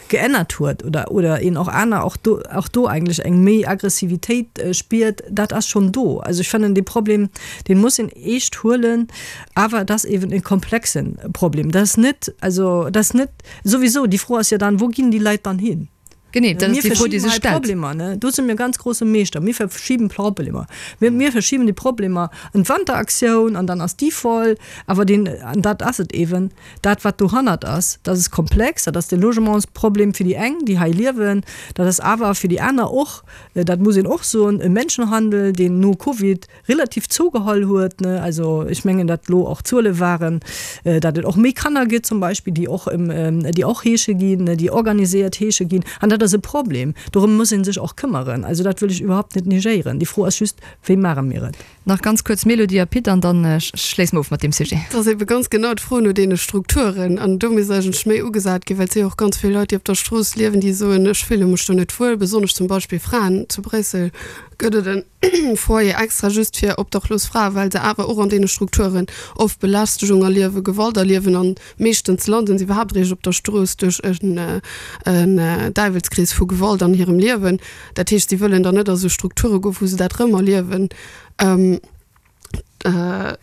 geännert huet oder, oder een och aner och do, och do eigentlech eng méi Aggressivitéit spiert, dat ass schonn do. Also ech fannen dee Problem, dee muss een eescht huelen, awer et ass eeben e komplexen Problem. Dat ass net, also dat ass net souwisou, déi Fro ass jo dann, wou ginn déi Leit dann hin? Genee, dat ass déi Fro, déi sech stellt. Problemer, ne? Do si mir ganz grosse Meeschter. Mir verschiben Problemer. Mir, mir verschiben déi Problemer an d'Wanteraktioun an dann ass déi voll. Awer deen, an dat ass et eeben, dat wat dohannert ass, dat ass komplex, dat ass de Logementsproblem fir déi eng, déi hei liewen, dat ass awer fir déi aner och, dat muss een och soen, e Menschenhandel, deen no Covid relativ zougeholl huet, ne, also ech mengen, datt elo och Zuele waren, datt et och méi Kanner gëtt zum Beispill, déi och, déi och heesche ginn, déi organiséiert heesche ginn. An dat ass e Problem, dorëm muss ee sech och këmmeren. Also dat wëll ech iwwerhaupt net negéieren. Déi Fro ass just, Wéi maache mir et? Nach ganz kuerz Mélodie a Pit an da schléisse mer of mat deem Sujet. Et ass ebe ganz genau d'Fro no deene Strukturen. An do misst eigentlech méi ugesat ginn, well et si jo och ganz vill Leit, déi op der Strooss liewen, déi soen, ech fille mech do net wuel. Besonnesch zum Beispill Fraen. Zu Bréissel gëtt et en Foyer extra just fir obdachlos Fraen, well se awer och an deene Strukturen oft Belästegung erliewen, Gewalt erliewen an meeschtens landen se iwwerhaapt eréischt op der Strooss duerch en Däiwelskrees vu Gewalt an hirem Liewen. Dat heescht, si wëllen dann net a sou Strukture goen, wou se dat rëm erliewen.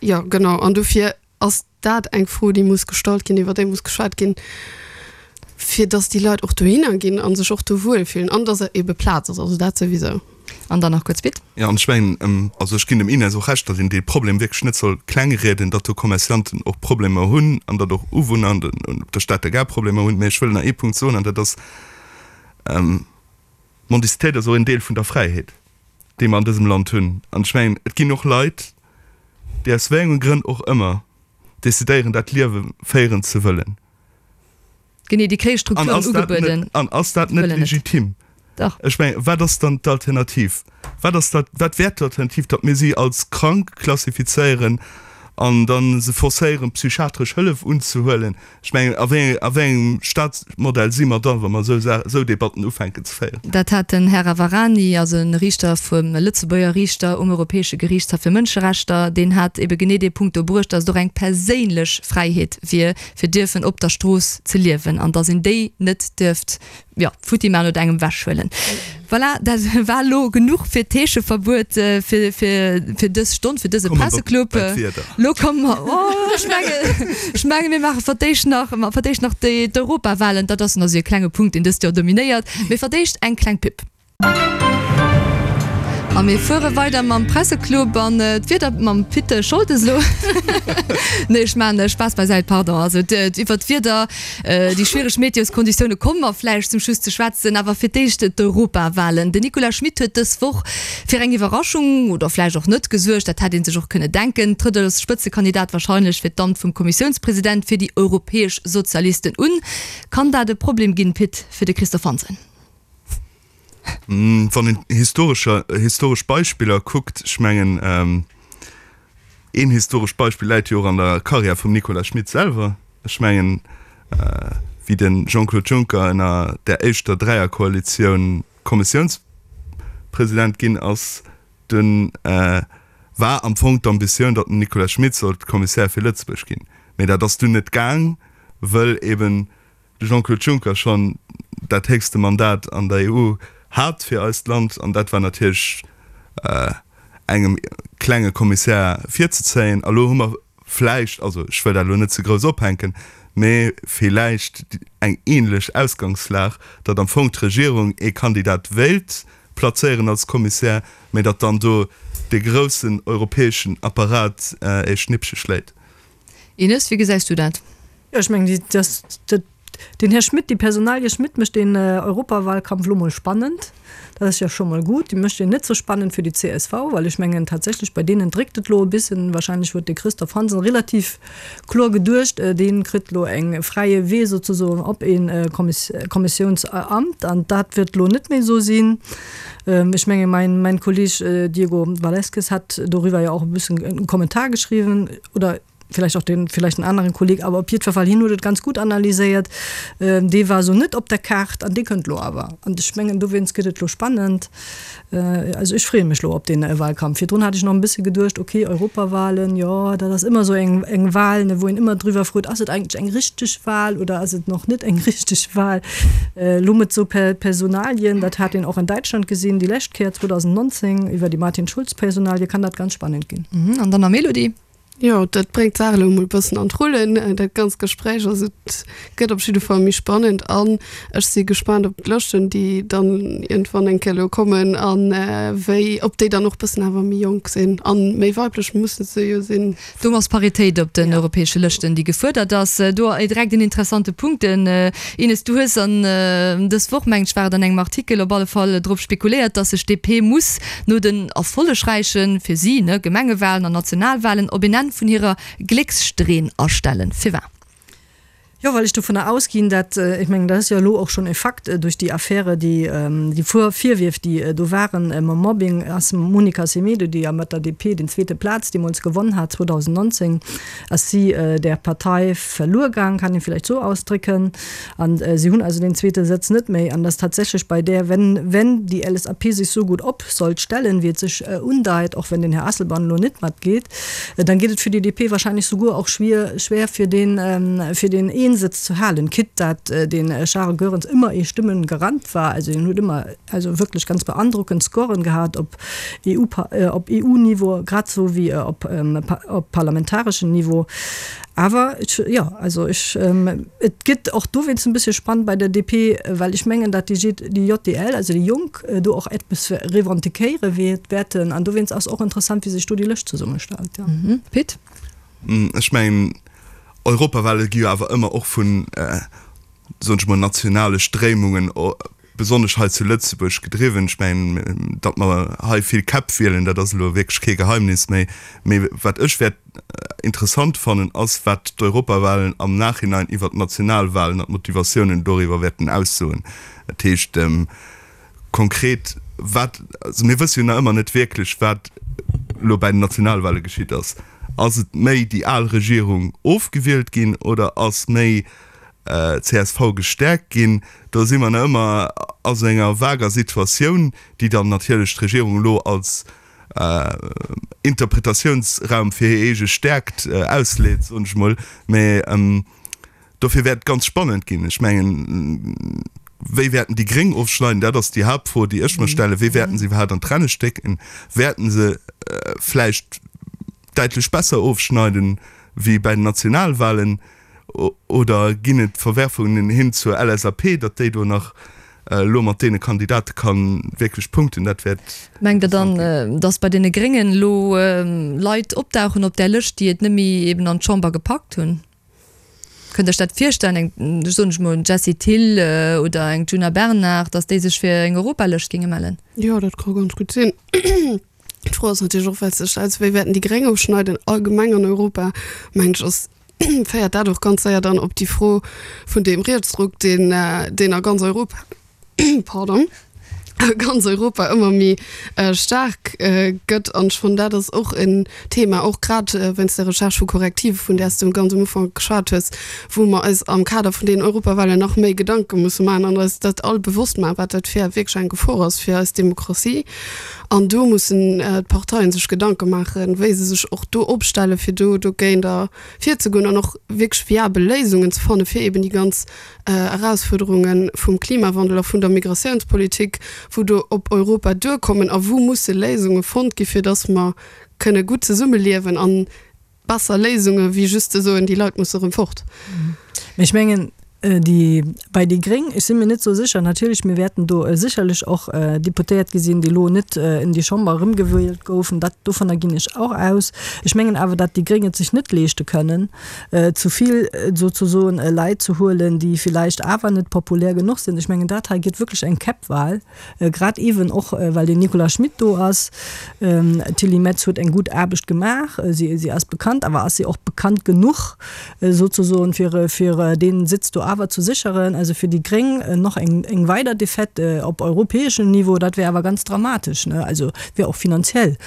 Jo, genau. An dofir ass dat eng Fro, déi muss gestallt ginn, iwwer déi muss geschwat ginn, fir datt déi Leit och dohinner ginn a sech och do wuelfillen an datt ebe Plaz ass, also dat souwisou. An dann nach kuerz, Pit. Jo, an ech mengen, also ech ginn dem Ines och Recht, datt een dee Problem wierklech net soll klengrieden, datt do Commercianten och Problemer hunn an datt och Uwunner an op der Stater Gare Problemer hunn. Mä ech wëll nach ee Punkt soen, an dat ass, D'Mendicitéit ass och een Deel vun der Fräiheet, déi mer an dësem Land hunn. An ech mengen, et ginn och Leit, déi aus wéi enge Grënn och ëmmer decidéieren, dat Liewe féieren ze wëllen. Genee, déi kréie Strukturen ugebueden. An ass dat net legitim? Dach. Ech mengen, wat ass dann d'Alternativ? Wat ass dat, wat wär d'Alternativ, datt mir si als krank klassifizéieren an da se forcéieren, psychiatresch Hëllef unzehuelen? Ech mengen, a wéi a wéi engem Staatsmodell si mer dann, wa mer esou Sa esou Debatten ufänken ze féieren? Dat hat den Här Ravarani, also e Riichter vum Lëtzebuerger Riichter um Europäesche Geriichtshaff fir Mënscherechter, deen hat ebe genee dee Punkt do bruecht, datt et och eng perséinlech Fräiheet wier, fir dierfen op der Strooss ze liewen an datt een déi net dierft jo, futti man oder engem wechhuelen. Voilà, dat war elo genuch fir d'Heescheverbuet fir, fir, fir dës Stonn, fir dëse Presseclub. Lo komme mer, oh, ech mengen, ech mengen, mir maache fir d'éischt nach, fir d'éischt nach déi, d'Europawahlen. Dat ass nach esou e klenge Punkt, deen dëst Joer dominéiert. Mee fir d'éischt eng kleng Pub. A mir fuere weider mam Presseclub an d'Wieder mam Pit Scholtes elo. Nee, ech maachen Spaass beisäit, pardon. Also iwwer d'Wieder, déi schwiereg Meteoskonditioune komme mer vläicht zum Schluss ze schwätzen. Awer fir d'éischt d'Europawalen. Den Nicolas Schmit huet dës Woch fir eng Iwwerraschung, oder vläicht och net, gesuergt. Dat hätt ee sech och kënne denken. Trëtt als Spëtzekandidat warscheinlech fir d'Amt vum Kommissiounspresident fir déi europäesch Sozialisten un. Kann dat e Problem ginn, Pit, fir de Christophe Hansen? Wann een historescher, historesch Beispiller kuckt, ech mengen, een historescht Beispill läit jo och an der Karriär vum Nicolas Schmit selwer. Ech mengen, wéi de Jean-Claude Juncker ënner där éischter Dräierkoalitioun Kommissiounspresident ginn ass, dunn. war am Fong d'Ambitioun, datt den Nicolas Schmit sollt Kommissär fir Lëtzebuerg ginn. Mee dat ass dunn net gaang, wëll eben de Jean-Claude Juncker schonn dat héchste Mandat an der EU hat fir eist Land. An dat war natierlech engem klenge Kommissär virzezéien. A lo hu mer vläicht, also ech wëll dat elo net ze grouss ophänken, mee villäicht eng ähnlech Ausgangslag, datt am Fong d'Regierung ee Kandidat wéilt plazéieren als Kommissär, mee datt dann do dee groussen europäeschen Apparat ee Schnippche schléit. Ines, wéi gesäis du dat? Jo, ech mengen, déi, den Här Schmit, déi Personalie Schmit mécht den Europawahlkampf elo mol spannend. Dat ass jo scho mol gutt. Déi mécht en net sou spannend fir déi csv, well ech mengen tatsächlech, bei deenen dréckt et elo e bissen. Wahrscheinlech huet de Christophe Hansen relativ kloer geduecht, dee kritt elo eng fräie Wee souzesoen op ee Kommissiounsamt an dat wäert elo net méi esou sinn. Ech menge mäin Kolleg Diego Valeskes hat doriwwer jo och e bëssen e Kommentar geschriwwen oder vielleicht och den vielleicht en aneren Kolleg, awer op jiddwer Fall hien huet et ganz gutt analyséiert, dee war esou net op der Kaart an dee kënnt elo awer. An ech mengen dowéinst gëtt et elo spannend. Also ech freeë mech elo op dee Wahlkampf. Virdrun hat ech nach e bësse geduecht, okay Europawahlen, jo dat ass ëmmer esou eng eng Wahl, ne, wou een ëmmer driwwer frot, ass et eigentlech eng richteg Wahl oder ass et nach net eng richteg Wahl? Elo mat esou Personalien, dat hat een och an Däitschland gesinn déi lescht Kéier 2019 iwwer déi Martin Schulz-Personalie, kann dat ganz spannend ginn. An dann nach Melody. Jo, dat bréngt d'Saach elo emol e bëssen an d'Rullen, dat ganzt Gespréich. Also et gëtt op jidde Fall méi spannend an ech si gespaant op d'Lëschten, déi dann iergendwann eng Kéier elo kommen a wéi, ob déi dann och bëssen awer méi jonk sinn a méi weiblech musse se jo sinn. Do ass Paritéit op den europäesche Lëschten, déi gefuerdert ass. Do direkt en interessante Punkt, Ines, du hues an dës Woch, mengen ech war et, an engem Artikel op alle Fall drop spekuléiert, dass sech d'DP muss no den erfollegräichen, fir si, ne, Gemengewahlen an Nationalwahlen op een Enn vun hirer Gléckssträhn astellen. Firwat? Jo, well ech dovunner ausginn, dat, ech mengen, dat ass jo elo och schonn e Fakt duerch déi Affäre, déi, déi Virwierf, déi do waren mam Mobbing, ass d'Monica Semedo, déi jo mat der DP den zweete Plaz deemools gewonn hat 2019, ass si där Partei verluer gaang, kann ee vläicht esou ausdrécken. An si hunn also deen zweete Sëtz net méi. An dass tatsächlech bei där, wenn, wenn déi LSAP sech esou gutt op sollt stellen, wéi et sech undeit, och wenn den Här Asselborn elo net matgeet, dann geet et fir déi DP wahrscheinlech souguer och schwier, schwer fir deen, fir deen een Sëtz ze halen, quitte dat den Charles Goerens ëmmer ee Stimmengarant war. Also hien huet ëmmer also wierklech ganz beandrockend Scoren gehat op EU, op EU-Niveau grad esou wéi op, op parlamentareschem Niveau. Awer ech, jo, also ech, et gëtt och dowéinst en bëssche spannend bei der DP, well ech mengen, datt déi déi JDL, also déi Jonk, do och eppes revendiquéiere wäerten. An dowéinst ass och interessant, wéi sech do déi Lëscht zesummestellt, jo. Pit? Ech mengen, Europawale gi jo awer ëmmer och vun, soen ech mol, nationale Stréimungen besonnesch hei zu Lëtzebuerg gedriwwen. Ech mengen, datt mer hei vill Käpp wielen, dat ass elo wierklech kee Geheimnis méi. Mee wat ech wäert interessant fannen, ass, wat d'Europawahlen am Nachhinein iwwert d'Nationalwahlen an d'Motivatiounen doriwwer wäerten aussoen. Dat heescht konkret, wat, also mir wësse jo nach ëmmer net wierklech, wat elo bäi den Nationalwahle geschitt ass. Ass et méi déi al Regierung ofgewielt ginn oder ass méi csv gestäerkt ginn. Do si mer nach ëmmer a sou enger vager Situatioun, déi dann natierlech d'Regierung elo als Interpretatiounsraum fir hir eege Stäerkt ausleet, soen ech emol. Mä dofir wäert et ganz spannend ginn. Ech mengen, wéi wäerten déi Gréng ofschneiden? Dat ass déi Haaptfro, déi ech mer stellen. Wéi wäerten se iwwerhaapt an d'Renne stécken? Wäerten se vläicht däitlech besser ofschneiden wéi bäi den Nationalwahlen? Oder ginn et Verwerfungen hin zur LSAP, datt déi do nach elo mat deene Kandidate ka wierklech punkten? Dat wäert Mengt Der dann, datt bei deene Gréngen elo Leit opdauchen op där Lëscht, déi et net méi eben an d'Chamber gepackt hunn? Kënnt Der Iech dat virstellen, eng, soen ech mol, Jessie Thill oder eng Djuna Bernard, datt déi sech fir eng Europalëscht géinge mellen? Jo, dat ka ganz gutt sinn. D'Fro ass natierlech och, well s de stells, wéi wäerten déi Gréng ofschneiden allgemeng an Europa, mengen ech, ass, féiert dat och ganz séier dann op déi Fro vun deem Rietsdruck, deen, deen a ganz Europa, pardon. A ganz Europa ëmmer méi staark gëtt. An ech fannen, dat ass och en Thema, och grad wéinst der Recherche vu Corrective, vun där s du ganz um Ufank geschwat hues, wou mer eis am Kader vun deenen Europawahlen nach méi Gedanke musse maachen an eis dat all bewosst maachen, wat dat fir wierklech eng Gefor ass fir eis Demokratie. An do mussen d'Parteien sech Gedanke maachen, wéi se sech och do opstellen, fir do dogéint virzegoen an och wierklech viabel Léisungen ze fannen, fir eben déi ganz Erausfuerderunge vum Klimawandel a vun der Migratiounspolitik, wou do op Europa duerkommen a wou musse Léisunge fonnt gi fir datt mer kënne gutt zesummeliewen an besser Léisunge wéi just ze soen, déi Leit musse erëm fort. Mä ech mengen, déi, bei déi Gréng, ech si mir net esou sécher, natierlech, mir wäerten do sécherlech och Deputéiert gesinn, déi elo net en déi Chamber erëmgewielt goufen, dat, dovunner ginn ech och aus. Ech mengen awer, datt déi Gréng et sech net leeschte kënnen, zu vill souzesoen Leit ze huelen, déi villäicht awer net populär genuch sinn. Ech mengen, dat hei gëtt wierklech eng Käppwahl, grad eeben och well den Nicolas Schmit do ass. D'Tilly Metz huet eng gutt Aarbecht gemaach, si si ass bekannt, awer ass si och bekannt genuch souzesoen, fir fir dee Sitz do awer ze sécheren? Also fir déi Gréng nach eng eng weider Defaite op europäeschem Niveau, dat wär awer ganz dramatesch, ne? Also wär och finanziell.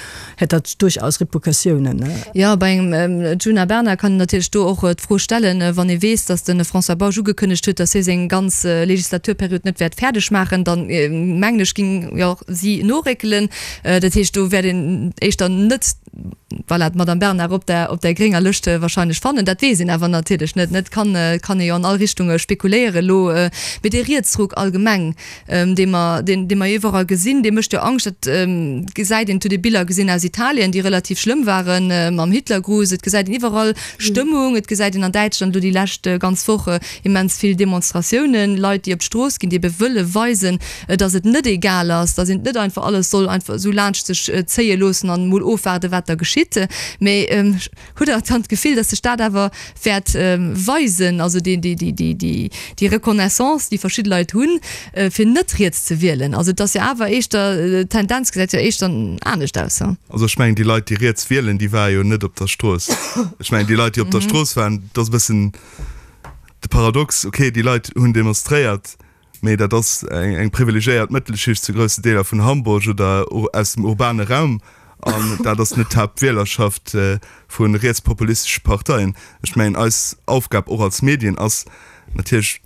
hätt dat duerchaus Repercussiounen. Jo, bei engem Djuna Bernard kann een natierlech do och d'Fro stellen, wann ee weess, datt de François Bausch ugekënnegt huet, datt hie seng ganz Legislaturperiod net wäert fäerdeg maachen, dann mengen ech, géing jo och si noréckelen. Dat heescht, do wäert een éischter net, voilà, d'Madame Bernard op der, op der grénger Lëscht wahrscheinlech fannen. Dat weess een awer natierlech net, net? Kann, kann ee jo an all Richtunge spekuléieren elo. Mee dee Rietsruck allgemeng, dee mer, deen, dee mer iwwerall gesinn, dee mécht jo Angscht. Dat gesäit een, et huet ee Biller gesinn aus Italien, déi relativ schlëmm waren, mam Hitlergruß. Et gesäit een iwwerall Stëmmung. Et gesäit een an Däitschland elo déi lescht ganz Woch immens vill Demonstratiounen, Leit, déi op d'Strooss ginn, déi ebe wëlle weisen, datt et net egal ass, datt een net einfach alles soll einfach esou laanscht sech zéie loossen an emol ofwaarden, wat da geschitt. Mee Hutt Der dann d'Gefill, dass sech dat awer wäert weisen, also déi Reconnaissance, déi verschidde Leit hunn, fir net riets ze wielen? Also et ass jo awer éischter, d'Tendenz gesäit jo éischter anescht aus. Also ech mengen, déi Leit, déi riets wielen, déi ware jo net op der Strooss. Ech mengen, déi Leit, déi op der Strooss waren, dat ass e bëssen de Paradox, okay, déi Leit hunn demonstréiert, Mee dat ass eng privilegiéiert Mëttelschicht zu groussen Deeler vun Hamburg oder aus dem urbane Raum, an dat ass net d'Haaptwielerschaft vu rietspopulistesche Parteien. Ech mengen, eis Aufgab och als Medien ass natierlech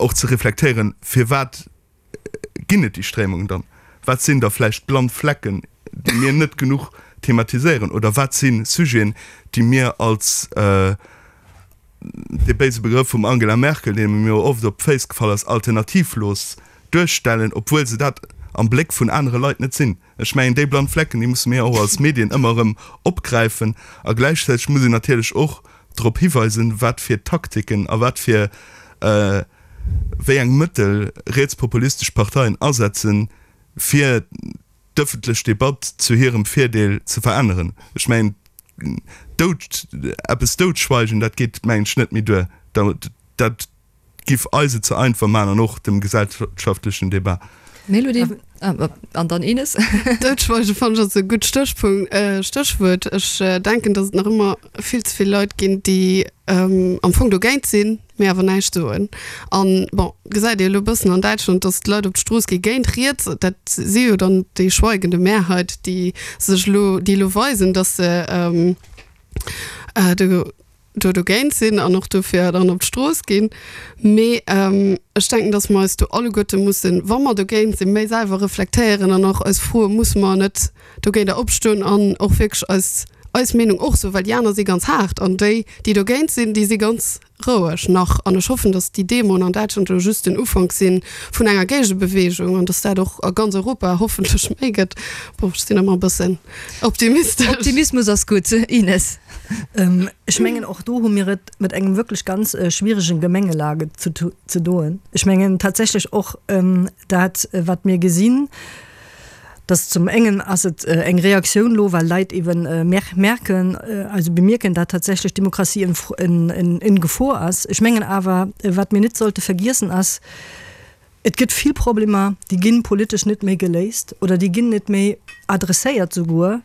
och ze reflektéieren, firwat ginn et déi Stréimungen dann? Wat sinn da vläicht blann Flecken, déi mir net genuch thematiséieren? Oder wat si Sujeten, déi mir als dee béise Begrëff vum Angela Merkel, dee mir jo oft op d'Féiss gefall ass, alternativlos duerstellen, obwuel se dat am Bléck vun anere Leit net sinn. Ech mengen, déi blann Flecken, déi musse mir och als Medien ëmmer erëm opgräifen. A gläichzäiteg muss een natierlech och drop hiweisen, wat fir Taktiken a wat fir wéi eng Mëttel rietspopulistesch Parteien asetzen, fir d'ëffentlech Debatt zu hirem Virdeel ze veränneren. Ech mengen, dout, eppes doutschweigen, dat geet, mengen ech, net méi duer. Dat giff eis et ze einfach maachen an och dem gesellschaftlechen Debat. Mélodie, an dann Ines. Doutschweigen fannen ech ass e gutt Stéchpunkt, Stéchwuert. Ech denken, datt et nach ëmmer vill ze vill Leit ginn, déi am Fong dogéint sinn, mee awer näischt soen. An, bon, gesäit ee elo e bëssen an Däitschland, datt d'Leit op d'Strooss gi géint riets. Dat si jo dann déi schweigende Mehrheit, déi sech elo, déi elo weisen, datt se do, do dogéint sinn an och dofir dann op d'Strooss ginn. Mee ech denken, datt mer eis do alleguerte mussen, wa mer dogéint sinn, méi selwer reflektéieren an och eis froen, Musse mer net dogéinter opstoen an och wierklech eis, eis Meenung och soen? Well déi aner si ganz haart an déi, déi dogéint sinn, déi si ganz roueg nach. An ech hoffen, datt déi Demoen an Däitschland elo just den Ufank si vun enger Géigebeweegung an datt dat och a ganz Europa hoffentlech méi gëtt. Bon, ech sinn ëmmer e bëssen optimistesch. Optimismus ass gutt, Ines. Ech mengen, och do hu mir et mat engem wierklech ganz schwierigen Gemengelage ze doen. Ech mengen tatsächlech och dat, wat mir gesinn, dass zum engen ass et eng Reaktioun elo, well Leit eeben merken, also bemierken, dat tatsächlech d'Demokratie en Gefor ass. Ech mengen awer, wat mir net sollte vergiessen ass, Et gëtt vill Problemer, déi gi politesch net méi geléist oder déi ginn net méi adresséiert souguer.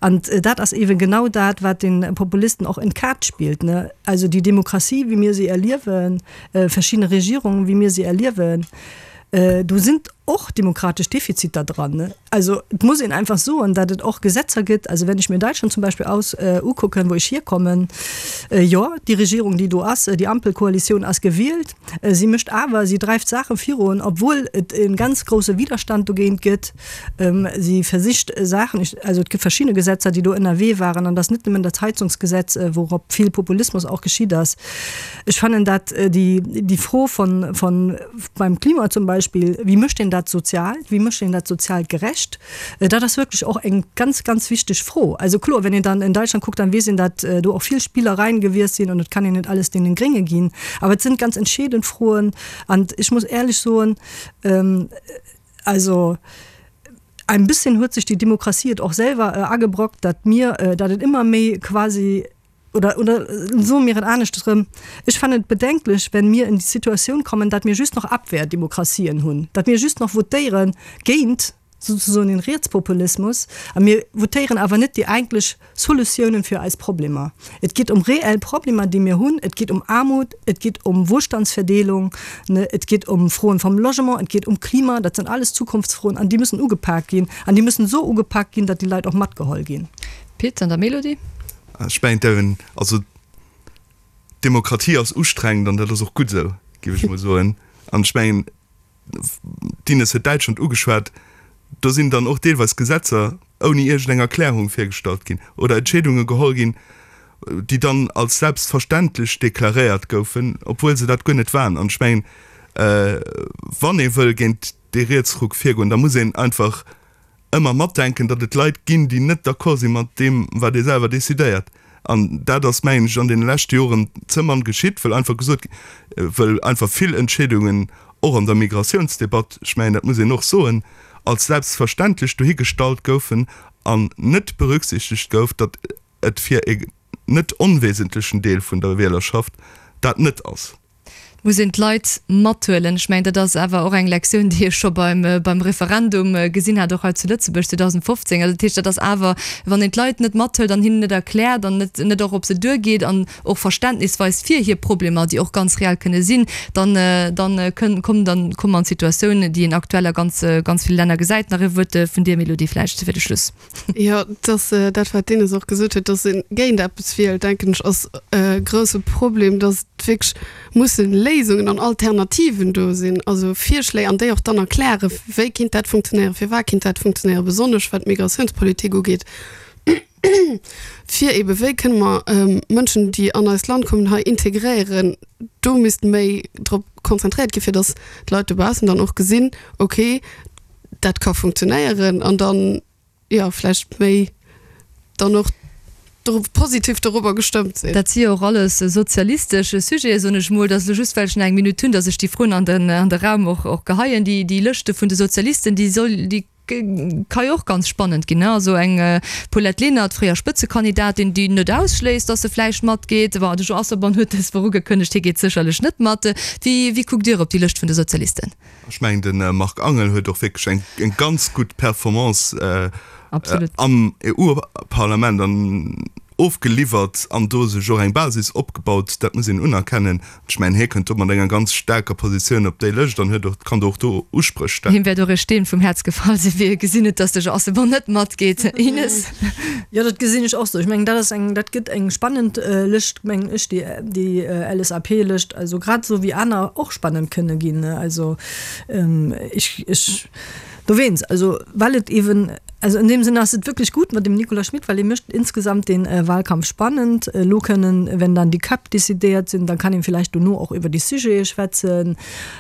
An dat ass eeben genau dat, wat de Populisten och en d'Kaart spillt, ne? Also déi Demokratie, wéi mir se erliewen, verschidde Regierungen, wéi mir se erliewen, do sinn. och demokratesch Defiziter dran. Also et muss een einfach soen, datt et och Gesetzer gëtt, also wenn ech mir Deutschland zum Beispill aus ukucken, wou ech hierkommen, jo, déi Regierung, déi do ass, déi Ampelkoalitioun ass gewielt, si mécht awer, si dreift Saache virun, obwuel et e ganz grousse Widerstand dogéint gëtt. Si versicht Saachen, also et gëtt verschidde Gesetzer, déi do ënnerwee waren, an et ass net nëmmen dat Heizungsgesetz, wourop vill Populismus och geschitt ass. Ech fannen dat déi, déi Fro von, von beim Klima zum Beispill, wéi mécht een dat sozial, wéi mécht een dat sozial gerecht, dat ass wierklech och eng ganz, ganz wichteg Fro. Also kloer, wenn een dann in Deutschland kuckt, dann weess een, dat do och vill Spillereien gewiescht sinn an et kann een net alles deenen Grénge ginn. Awer et sinn ganz entscheedend Froen an ech muss éierlech soen, also ein bisschen huet sech déi Demokratie et och selwer agebrockt, datt mir, datt et ëmmer méi quasi, oder, oder soe mir et aneschters erëm, Ech fannen et bedenklech, wenn mir in die Situatioun kommen, datt mir just noch Abwehrdemokratien hunn, datt mir just noch votéiere géint souzesoen den Rietspopulismus a mir votéieren awer net déi eigentlech Solutiounen fir eis Problemer. Et geet ëm reell Problemer, déi mir hunn. Et geet ëm Aarmut, et geet ëm Wohlstandsverdeelung, et geet ëm Froen vom Logement, et geet ëm Klima. Dat sinn alles Zukunftsfroen an déi müssen ugepak ginn an déi müssen esou ugepak ginn, datt déi Leit och matgeholl ginn. Pit an der Melodie. Ech mengen d'Erin, also Demokratie ass ustrengend an dat ass och gutt esou, géif ech mol soen. An ech mengen, d'Ines huet Däitschland ugeschwat, do sinn dann och deelweis Gesetzer ouni iergendeng Erklärung virgestallt ginn oder Entscheedunge geholl ginn, déi dann als selbstverständlech deklaréiert goufen, obwuel se dat guer net waren. An ech mengen, wann ee wëll géint dee Rietsruck virgoen, da muss een einfach ëmmer matdenken, datt et Leit ginn, déi net d'accord si mat deem, wat ee selwer decidéiert. An dat ass, mengen ech, an deene leschte Joren ze mann geschitt, wëll einfach gesot, wëll einfach vill Entscheedungen och an der Migratiounsdebatt, ech mengen, dat muss een och soen, als selbstverständlech dohigestallt goufen an net berücksichtegt gouf, datt et fir e net onwesentlechen Deel vun der Wielerschaft dat net ass. Et muss een d'Leit mathuelen. Ech mengen, dat ass awer och eng Lektioun, déi ech scho beim, beim Referendum gesinn hat, och hei zu Lëtzebuerg 2015. Also dat heescht, dat ass awer, wann een d'Leit net mathëlt an hinnen net erkläert an net, net och op se duergeet an och Verständnis weist fir hir Problemer, déi och ganz reell kënne sinn, dann, dann kënn, kommen, dann komme mer an d'Situatioun, déi een aktuell a ganz, ganz ville Länner gesäit. Nach e Wuert vun dir, Mélodie, vläicht fir de Schluss. Jo, dass dat, wat d'Ines och gesot huet, dass ee géint eppes wielt, denken ech, ass e grouse Problem, dass et wierklech musse Léisungen an Alternativen do sinn, also Virschléi, an déi och dann erklären, wéi kinnt dat funktionéieren, firwat kinnt dat funktionéieren, besonnesch wat d'Migratiounspolitik ugeet, fir eebe wéi kënne mer Mënschen, déi an eist Land kommen, hei integréieren. Do misst méi drop konzentréiert ginn, fir dass d'Leit dobaussen dann och gesinn, okay, dat ka funktionéieren an dann, jo, vläicht méi dann och do positiv dorobber gestëmmt sinn. Dat si jo och alles sozialistesch Sujete, soen ech mol. Dat ass elo just, well ech nach eng Minutt hunn, datt ech déi Froen an den, an de Raum och, och geheien. Déi, déi Lëschte vun de Sozialisten, déi soll, déi ka jo och ganz spannend ginn, ne? Also eng Paulette Lenert, fréier Spëtzekandidatin, déi net ausschléisst, datt se vläicht matgeet. Bon, de Jean Asselborn huet dës Woch ugekënnegt, hie geet sécherlech net mat. Wéi, wéi kuckt Dir op déi Lëscht vun de Sozialisten? Ech mengen, de Marc Angel huet och wierklech eng, eng ganz gutt Performance am EU-Parlament an ofgeliwwert an do sech och eng Basis opgebaut. Dat muss een unerkennen. Ech mengen, hie kënnt do mat enger ganz staarker Positioun op déi Lëscht an huet och, kann do och do Uspréch stellen. Him wäert och e Steen vum Häerz gefall sinn, wéi e gesinn huet, dass de Jean Asselborn net matgeet. Ines? Jo, dat gesinn ech och esou. Ech mengen, dat ass eng, dat gëtt eng spannend Lëscht, mengen ech, déi, déi LSAP-Lëscht. Also grad esou wéi aner och spannend kënne ginn. Also ech, ech dowéinst, also well et eeben, also in dem Sinne ass et wierklech gutt mat dem Nicolas Schmit, well e mécht insgesamt dee Wahlkampf spannend. Elo kënnen, wenn dann déi Käpp decidéiert sinn, dann kann een villäicht dono och iwwer déi Sujete schwätzen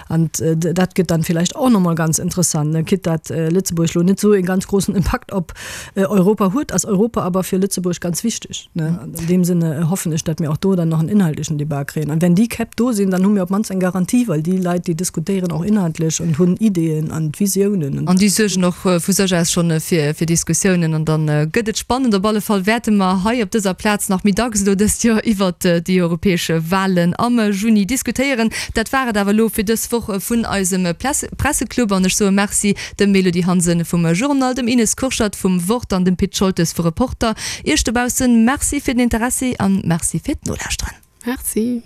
an dat gëtt dann villäicht och nach mol ganz interessant, quitte dat Lëtzebuerg elo net esou e ganz grossen Impakt op Europa huet, ass Europa awer fir Lëtzebuerg ganz wichteg. An deem Sinne hoffen ech, datt mir och do dann nach en inhaltlechen Debat kréien. An wenn déi Käpp do sinn, dann hu mir op d'mannst eng Garantie, well déi Leit, déi diskutéieren och inhaltlech an hunn Ideeën an Visiounen. An déi suergen och vu sech aus schonn fir Diskussiounen. An da gëtt et spannend. Op alle Fall wäerte mer hei op dëser Plaz nach méi dacks elo dëst Joer iwwert déi europäesch Wahlen am Juni diskutéieren. Dat war et awer elo fir dës Woch vun eisem Presseclub. An ech soe Merci dem Mélodie Hansen vum Journal, dem Ines Kurschat vum Wort an dem Pit Scholtes vu Reporter. Iech dobaussen Merci fir den Interessi an Merci fir d'Nolauschteren. Merci.